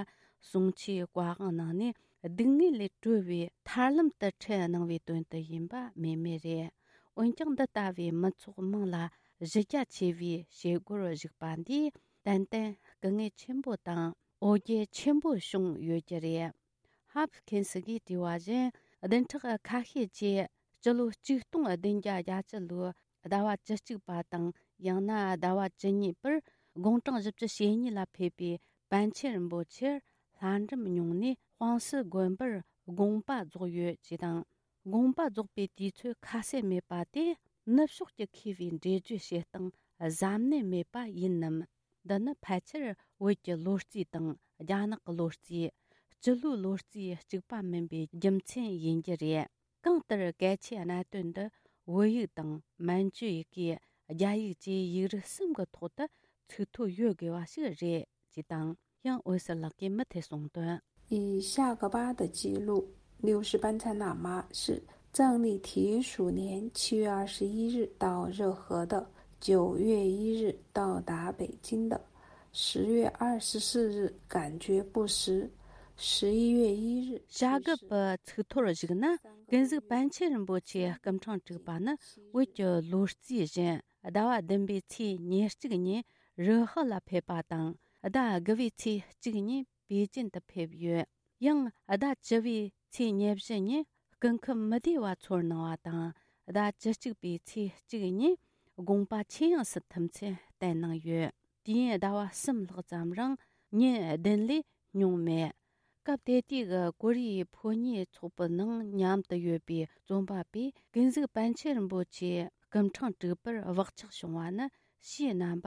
གསུང་ཆོས་བཀའ་དབང་གནང་ནས། སྡུག་བསྔལ་ལས་གྲོལ་བའི་ཐར་ལམ་དུ་ཁྲིད་གནང་བའི་དོན་དུ་ཡིན་པ་སྨོས་མེད་རེད། འོན་ཀྱང་། འདི་ལྟ་བུའི་མི་ཚོགས་མང་ལ་གཞི་རྒྱ་ཆེ་བའི་བྱེད་སྒོར་ཞུགས་པ་འདིས་ཏན་ཏན་སྐུ་ངལ་ཆེན་པོ་དང་འོ་བརྒྱལ་ཆེན་པོ་བྱུང་ཡོད་ཀྱི་རེད། ཧབ་ཁེན་སི་གིས་བྲིས་པ་བཞིན། བདུན་ཕྲག་ཁ་ཤས་རྗེས་སྤྱི་ལོ་ཆིག་སྟོང་བདུན་བརྒྱ་བརྒྱད་ཅུ་ལོའི་ཟླ་བ་བཅུ་གཅིག་པ་དང་། ཡང་ན་ཟླ་བ་བཅུ་གཉིས་པར་དགུང་གྲངས་བཞི་བཅུ་ཞེ་གཉིས་ལ་ཕེབས་པའི་པཎ་ཆེན་རིན་པོ་ཆེར་ལྷ་འབྲུམ་བྱུང་ནས་ཧྥང་སི་དགོན་པར་དགོངས་པ་རྫོགས་ཡོད་ཅེས་དང་། དགོངས་པ་རྫོགས་པའི་དུས་ཚོད་ཁ་གསལ་མེད་པ་དེ། ནུབ་ཕྱོགས་ཀྱི་མཁས་པའི་འགྲེལ་བརྗོད་བྱེད་སྟངས་གཟབ་ནན་མེད་པ་ཡིན་ནམ། འདི་ནི་ཕལ་ཆེར་བོད་ཀྱི་ལོ་རྩིས་དང་རྒྱ་ནག་གི་ལོ་རྩིས། སྤྱི་ལོའི་ལོ་རྩིས་གཅིག་པ་མིན་པའི་རྒྱུ་མཚན་ཡིན་རྒྱུ་རེད། གང་ལྟར་གལ་ཆེའི་གནད་དོན་འདི་བོད་ཡིག་དང་མན་ཇུ་ཡི་གེ། རྒྱ་ཡིག་བཅས་ཡིག་རིགས་གསུམ་གྱི་ཐོག་ཏུ་ཚིག་ཐོ་ཡོད་དགོས་པ་ཞིག་རེད་ཅེས་དང་། ཡང་འོད་ཟེར་ལགས་ཀྱིས་མུ་མཐུད་གསུངས་དོན། 以夏格巴的记录，六世班禅喇嘛是藏历铁鼠年七月二十一日到热河的，九月一日到达北京的，十月二十四日感觉不适，十一月一日 བྱ་རྒོད་པའི་ཚིག་ཐོར་གཞིགས་ན། ཀུན་གཟིགས་པཎ་ཆེན་རིན་པོ་ཆེའི་སྐུ་ཕྲེང་དྲུག་པ་ནི་བོད་ཀྱི་ལོ་རྩིས་བཞིན་ཟླ་བ་བདུན་པའི་ཚེས་ཉེར་གཅིག་ཉིན་རུ་ཧི་ལ་ཕེབས་པ་དང་། ཟླ་དགུ་བའི་ཚེས་གཅིག་ཉིན་པེ་ཅིན་དུ་ཕེབས་ཡོད། ཡང་ཟླ་བཅུ་བའི་ཚེས་ཉེར་བཞི་ཉིན་སྐུ་ཁམས་མི་བདེ་བ་ཚོར་གནང་བ་དང་། ཟླ་བཅུ་གཅིག་པའི་ཚེས་གཅིག་ཉིན་དགོངས་པ་ཆེ་ཡངས་སུ་ཐིམ་མཚམས་བསྟན་གནང་ཡོད། དུས་ཡུན་ཟླ་བ་གསུམ་ལྷག་ཙམ་རིང་ཉིན་བདུན་ལས་ཉུང་མེད། སྐབས་དེ་དུས་ཀྱི་ཀོ་རི་ཡའི་ཕོ་ཉའི་ཚོགས་པའི་ནང་མཉམ་དུ་ཡོད་པའི་རྩོམ་པ་པས། ཀུན་གཟིགས་པཎ་ཆེན་རིན་པོ་ཆེའི་སྐུ་ཕྲེང་དྲུག་པར་བག་ཆགས་བྱུང་བ་ནི་ཕྱིའི་རྣམ་པ་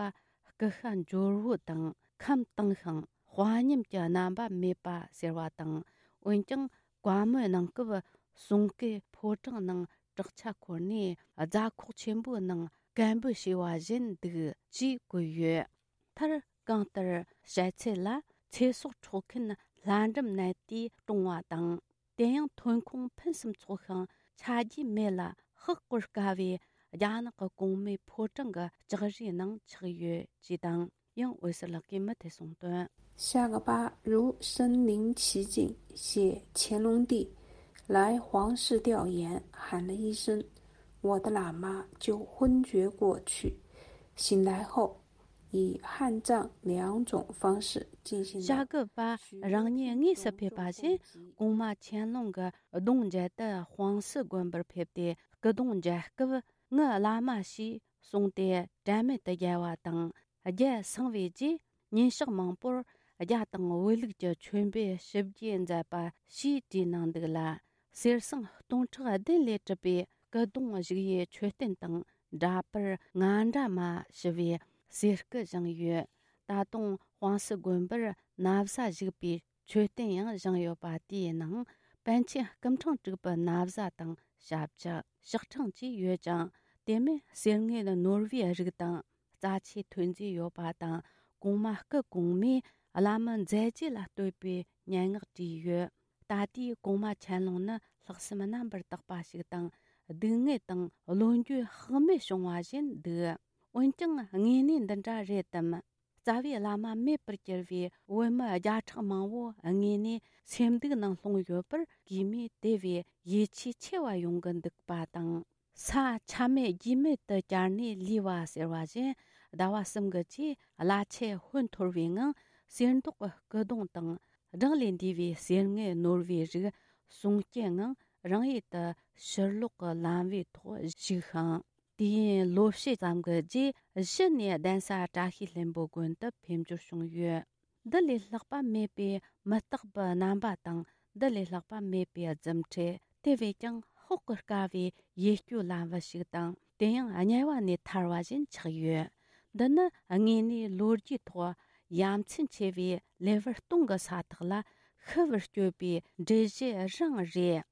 སྐུ་ཤ་འབྱོར་བོ་དང་ཁམས་དྭངས་ཤིང་དཔའ་ཉམས་ཀྱི་རྣམ་པ་མེད་པ་ཟེར་བ་དང་། འོན་ཀྱང་བཀའ་མོལ་གནང་སྐབས་གསུང་སྐད་ཕོ་བྲང་ནང་བྲག་ཆ་འཁོར་ནས་རྫ་ཁོག་ཆེན་པོའི་ནང་སྐད་འབོད་བྱས་པ་བཞིན་འདུག་ཅེས་བཀོད་ཡོད། མཐར། གང་ལྟར་བཤད་ཚུལ་ལ་ཚེ་སྲོག་འཕྲོག་མཁན་ལྷ་འབྲུམ་ནད་དེས་གྲོངས་པ་དང་། དེ་ཡང་ཐོན་ཁུངས་ཕུན་སུམ་ཚོགས་ཤིང་ཆ་རྒྱུས་མེད་ལ་ཧ་གོ་དཀའ་བའི་ རྒྱ་ནག་གི་གོང་མའི་ཕོ་བྲང་གི་ལྕགས་རིའི་ནང་ཆགས་ཡོད་ཅེས་དང་། ཡང་འོད་ཟེར་ལགས་ཀྱིས་མུ་མཐུད་གསུངས་དོན། 夏格巴如身临其境，写乾隆帝来皇室调研，喊了一声“我的喇嘛”，就昏厥过去。醒来后，以汉藏两种方式进行了 ཞྭ་གི་པ་རང་ཉིད་དངོས་སུ་ཕེབས་པ་བཞིན། གོང་མ་ཆན་ལུང་གི་གདུང་མཇལ་དུ་ཧྥང་སི་དགོན་པར་ཕེབས་ཏེ། སྐུ་གདུང་མཇལ་སྐབས། ངའི་བླ་མ་ཞེས་གསུངས་ཏེ་དྲན་མེད་དུ་བརྒྱལ་བ་དང་། བརྒྱལ་སངས་པའི་རྗེས། ཉིན་ཞག་མང་པོར་རྒྱ་དང་བོད་ལུགས་ཀྱི་མཆོད་འབུལ་ཞིབ་རྒྱས་མཛད་པ་ཞེས་བྲིས་གནང་འདུག་ལ། གསེར་ཟངས་སྟོང་ཕྲག་བདུན་ལས་གྲུབ་པའི་སྐུ་གདུང་བཞུགས་ཡུལ་མཆོད་རྟེན་དང་འདྲ་པར་ང་འདྲ་མ་ཞུ་བའི་གསེར་སྐུ་བཞེངས་ཡོད། ད་དུང་ཧྥང་སི་དགོན་པར་ན་བཟའ་བཞུགས་པའི་མཆོད་རྟེན་ཡང་བཞེངས་ཡོད་པ། དེའི་ནང་པཎ་ཆེན་སྐུ་ཕྲེང་དྲུག་པའི་ན་བཟའ་དང་ཞབས་ཕྱི། ཕྱག་ཕྲེང་བཅས་ཡོད་ཅིང་། དེ་མིན་གསེར་དངུལ་ནོར་བུའི་རིགས་དང་རྩ་ཆེའི་ཐོན་རྫས་ཡོད་པ་དང་། གོང་མ་སྐུ་གོང་མས་བླ་མའི་མཛད་རྗེས་ལ་བསྟོད་པའི་སྙན་ངག་བྲིས་ཡོད། ད་ལྟའི་གོང་མ་ཆན་ལུང་ནི་ལྷག་བསམ་རྣམ་པར་དག་པ་ཞིག་དང་། སྡུག་བསྔལ་དང་བློ་འགྱོད་དཔག་མེད་བྱུང་བ་བཞིན་འདུག་འོན་ཀྱང་དངོས་གནས་འདི་འདྲ་རེད་དམ། རྩ་བའི་བླ་མ་མེད་པར་གྱུར་བའི་བོད་མི་བརྒྱ་ཕྲག་མང་བོ་དངོས་གནས་སེམས་སྡུག་ནང་ལྷུང་ཡོད་པར། གུས་མོས་དེ་བས་ཡིད་ཆེས་ཆེ་བ་ཡོང་གི་འདུག་པ་དང་། ས་ཆ་མེད་རྒྱུས་མེད་དུ་གྱར་ནས་ལུས་པ་ཟེར་བ་བཞིན། ཟླ་བ་གསུམ་གྱི་རྗེས་བླ་ཆེན་ཧོན་འཐོར་བའི་ངང་གསེར་མདོག་གི་སྐུ་གདུང་དང་། བགྲང་ལས་འདས་པའི་གསེར་དངུལ་ནོར་བུའི་རིགས་གསུང་སྐྱེལ་ངང་རང་ཡུལ་དུ་ཕྱིར་ལོག་གི་ལམ་བུའི་ཐོག་བཞུགས་ཤིང་། དུས་ཡུན་ལོ་ཕྱེད་ཙམ་གྱི་རྗེས་གཞི་ནས་གདན་ས་བཀྲ་ཤིས་ལྷུན་པོ་དགོན་དུ་ཕེབས་འབྱོར་བྱུང་ཡོད། འདི་ལས་ལྷག་པ་མེད་པའི་མི་རྟག་པའི་རྣམ་པ་དང་། འདི་ལས་ལྷག་པ་མེད་པའི་རྫུ་འཕྲུལ། དེ་བས་ཀྱང་དཔོག་གི་དཀའ་བའི་ཡིད་སྐྱོ་ལམ་བུ་ཞིག་དང་། དེ་ཡང་དམྱལ་བ་ནས་ཐར་བ་བཞིན་ཆགས་ཡོད། འདི་ནི་དངོས་གནས་ལོ་རྒྱུས་ཐོག་ཡ་མཚན་ཆེ་བའི་ལེ་དབར་སྟོང་གི་ས་ཐག་ལ་ཤི་བར་སྤྱོད་པའི་འགྲུལ་བཞུད་རང་རེད།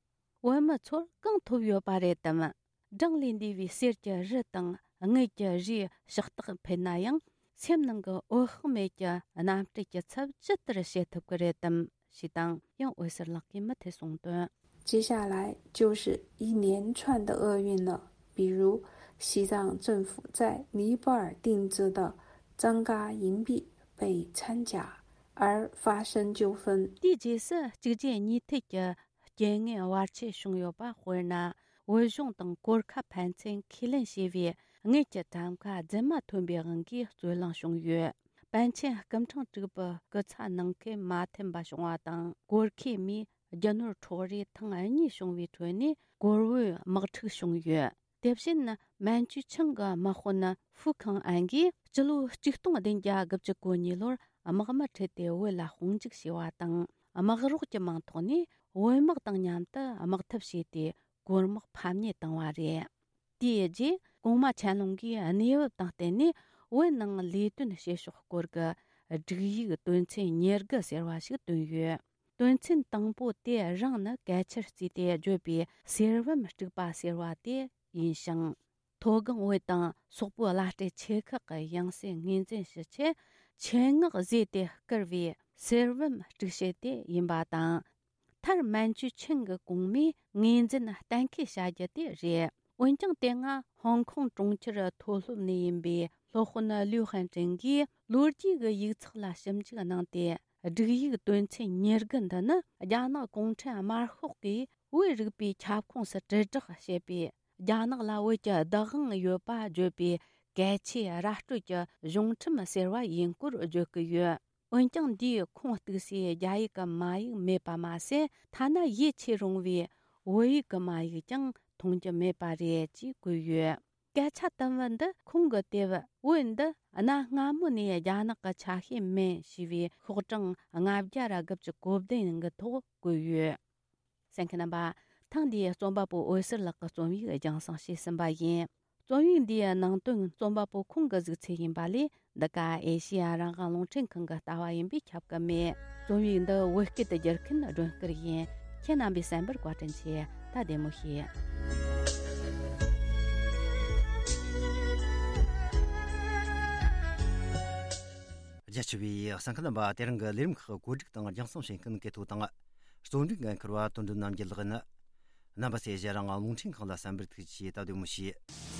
བོད་མི་ཚོར་གང་ཐོབ་ཡོད་པ་རེད་དམ། བགྲང་ལས་འདས་པའི་གསེར་གྱི་རི་དང་དངུལ་གྱི་རིའི་ཕྱག་རྟགས་འཕེན་ན་ཡང་། སེམས་ནང་གི་འོད་དཔག་མེད་ཀྱི་རྣམ་སྤྲུལ་གྱི་ཚབ་ཇི་ལྟར་བྱེད་ཐུབ་ཀྱི་རེད་དམ་ཞེས་དང་། ཡང་འོད་ཟེར་ལགས་ཀྱིས་མུ་མཐུད་གསུངས་དོན། 接下来就是一连串的厄运了，比如西藏政府在尼泊尔定制的张嘎银币被掺假而发生纠纷。 དེའི་རྗེས་སུ་གཅིག་རྗེས་གཉིས་མཐུད་ཀྱི་རྐྱེན་ངན་བར་ཆད་བྱུང་ཡོད་པ། དཔེར་ན། བོད་གཞུང་དང་གོར་ཁ་ཕན་ཚུན་ཁས་ལེན་བྱས་པའི་དངུལ་གྱི་ཊམ་ཁ་རྫུན་མ་ཐོན་པའི་དབང་གིས་རྩོད་གླེང་བྱུང་ཡོད། པཎ་ཆེན་སྐུ་ཕྲེང་དྲུག་པའི་སྐུ་ཚ་ནང་ཁུལ་མ་མཐུན་པ་བྱུང་བ་དང་། གོར་ཁའི་མིས་རྒྱུ་ནོར་འཕྲོག་རེས་ཐེངས་གཉིས་བྱུང་བའི་ཁྲོད་ནས་གོར་བོའི་དམག་འཁྲུག་བྱུང་ཡོད། དེ་བཞིན་མན་ཇུ་ཆིང་གི་དམག་དཔོན་ཧྥུ་ཁང་ཨན་གྱིས་སྤྱི་ལོ་ཆིག་སྟོང་བདུན་བརྒྱ་དགུ་བཅུ་གོ་གཉིས་ལོར་དམག་མི་ཁྲིད་དེ་བོད་ལ་དཔུང་འཇུག་བྱས་པ་དང་། དམག་རོགས་ཀྱི་མིང་ཐོག་ནས་བོད་དམག་དང་མཉམ་དུ་དམག་འཐབ་བྱས་ཏེ། གོར་དམག་ཕམ་ཉེས་བཏང་བ་རེད། དེའི་རྗེས་གོང་མ་ཆན་ལུང་གིས་གནས་བབ་དང་བསྟུན་ནས་བོད་ནང་ལས་དོན་བྱེད་ཕྱོགས་སྐོར་གྱི་སྒྲིག་ཡིག་དོན་ཚན་ཉེར་དགུ་ཟེར་བ་ཞིག་བཏོན་ཡོད། དོན་ཚན་དང་པོ་དེ་རང་ནི་གལ་ཆེར་བརྩིས་ཏེ་བརྗོད་པའི་གསེར་བུམ་དཀྲུགས་པ་ཟེར་བ་དེ་ཡིན་ཞིང་། མཐོ་སྒང་བོད་དང་སོག་པོའི་བླ་སྤྲུལ་ཆེ་ཁག་གི་ཡང་སྲིད་ངོས་འཛིན་ཞུ་ཆེད་ཆེད་མངགས་བཟོས་ཏེ་བསྐུར་བའི་གསེར་བུམ་དཀྲུག་བྱེད་དེ་ཡིན་པ་དང་། མཐར་མན་ཇུ་ཆིང་གི་གོང་མས་ངོས་འཛིན་གཏན་འཁེལ་བྱ་རྒྱུ་དེ་རེད། འོན་ཀྱང་དེ་སྔ་ཧོང་ཀོང་གྲོང་ཁྱེར་མཐོ་སློབ་ནས་ཡིན་པའི་སློབ་དཔོན་ལིའུ་ཧན་ཀྲེང་གིས་ལོ་རྒྱུས་ཀྱི་ཡིག་ཚགས་ལ་ཞིབ་འཇུག་གནང་སྟེ། སྒྲིག་ཡིག་དོན་ཚན་ཉེར་དགུ་འདི་ནི་རྒྱ་ནག་གུང་ཁྲན་དམར་ཤོག་གིས་བོད་རིག་པའི་ཁྱབ་ཁོངས་སུ་དྲིལ་བསྒྲགས་བྱེད་པའི། རྒྱ་ནག་ལ་བོད་ཀྱི་བདག་དབང་ཡོད་པ་བརྗོད་པའི་གལ་ཆེའི་ར་སྤྲོད་ཀྱི་གཞུང་ཁྲིམས་ཟེར་བ་ཡིན་སྐོར་བརྗོད་ཀྱི་ཡོད། འོན་ཀྱང་འདིའི་ཁུངས་གཏུགས་སའི་རྒྱ་ཡིག་གི་མ་ཡིག་མེད་པ་མ་ཟད། ཐ་ན་ཡིད་ཆེས་རུང་བའི་བོད་ཡིག་གི་མ་ཡིག་ཀྱང་མཐོང་རྒྱུ་མེད་པ་རེད་ཅེས་བཀོད་ཡོད། སྐད་ཆ་དུམ་བུ་འདི་ཁོང་གིས་དེ་བས་བོད་འདི་གནའ་སྔ་མོ་ནས་རྒྱ་ནག་གི་ཆ་ཤས་མིན་ཞེས་པའི་ཤོག་གྲངས་ལྔ་བརྒྱ་ར་དགུ་བཅུ་གོ་བདུན་གྱི་ཐོག་བཀོད་ཡོད། གསན་མཁན་རྣམ་པ། ཐེངས་འདིའི་རྩོམ་པ་པོ་འོད་ཟེར་ལགས་ཀྱི་རྩོམ་ཡིག་རྒྱང་སྲིང་བྱས་ཟིན་པ་ཡིན། རྩོམ་ཡིག་འདིའི་ནང་དོན་རྩོམ་པ་པོ་ཁོང་གི་གཟིགས་ཚུལ་ཡིན་པ་ལས། འདི་ག་ཨེ་ཤེ་ཡ་རང་དབང་རླུང་འཕྲིན་ཁང་གི་ལྟ་བ་ཡིན་པས་ཁྱབ་ཀྱི་མེད། རྩོམ་ཡིག་འདི་བོད་སྐད་དུ་བསྒྱུར་མཁན་སྒྲོན་སྐུར་ཡིན། ཁྱེད་རྣམ་པས་གསན་པར་བཀའ་དྲིན་ཆེ། ད་བདེ་མོ་བྱོས། རྒྱ་ཆེ་བའི་གསན་མཁན་རྣམ་པ། དེ་རིང་གི་ལས་རིམ་ཁག་བཀོད་སྒྲིག་དང་རྒྱང་སྲིང་བྱེད་མཁན་གལ་ཐོ་དང་། རྩོམ་སྒྲིག་འགན་འཁུར་བ་དོན་གྲུབ་རྣམ་རྒྱལ་ལགས་ཡིན། རྣམ་པ་ཚོས་གཞན་རང་དབང་རླུང་འཕྲིན་ཁང་ལ་གསན་པར་ཐུགས་རྗེ་ཆེ། ད་བདེ་མོ་བྱོས།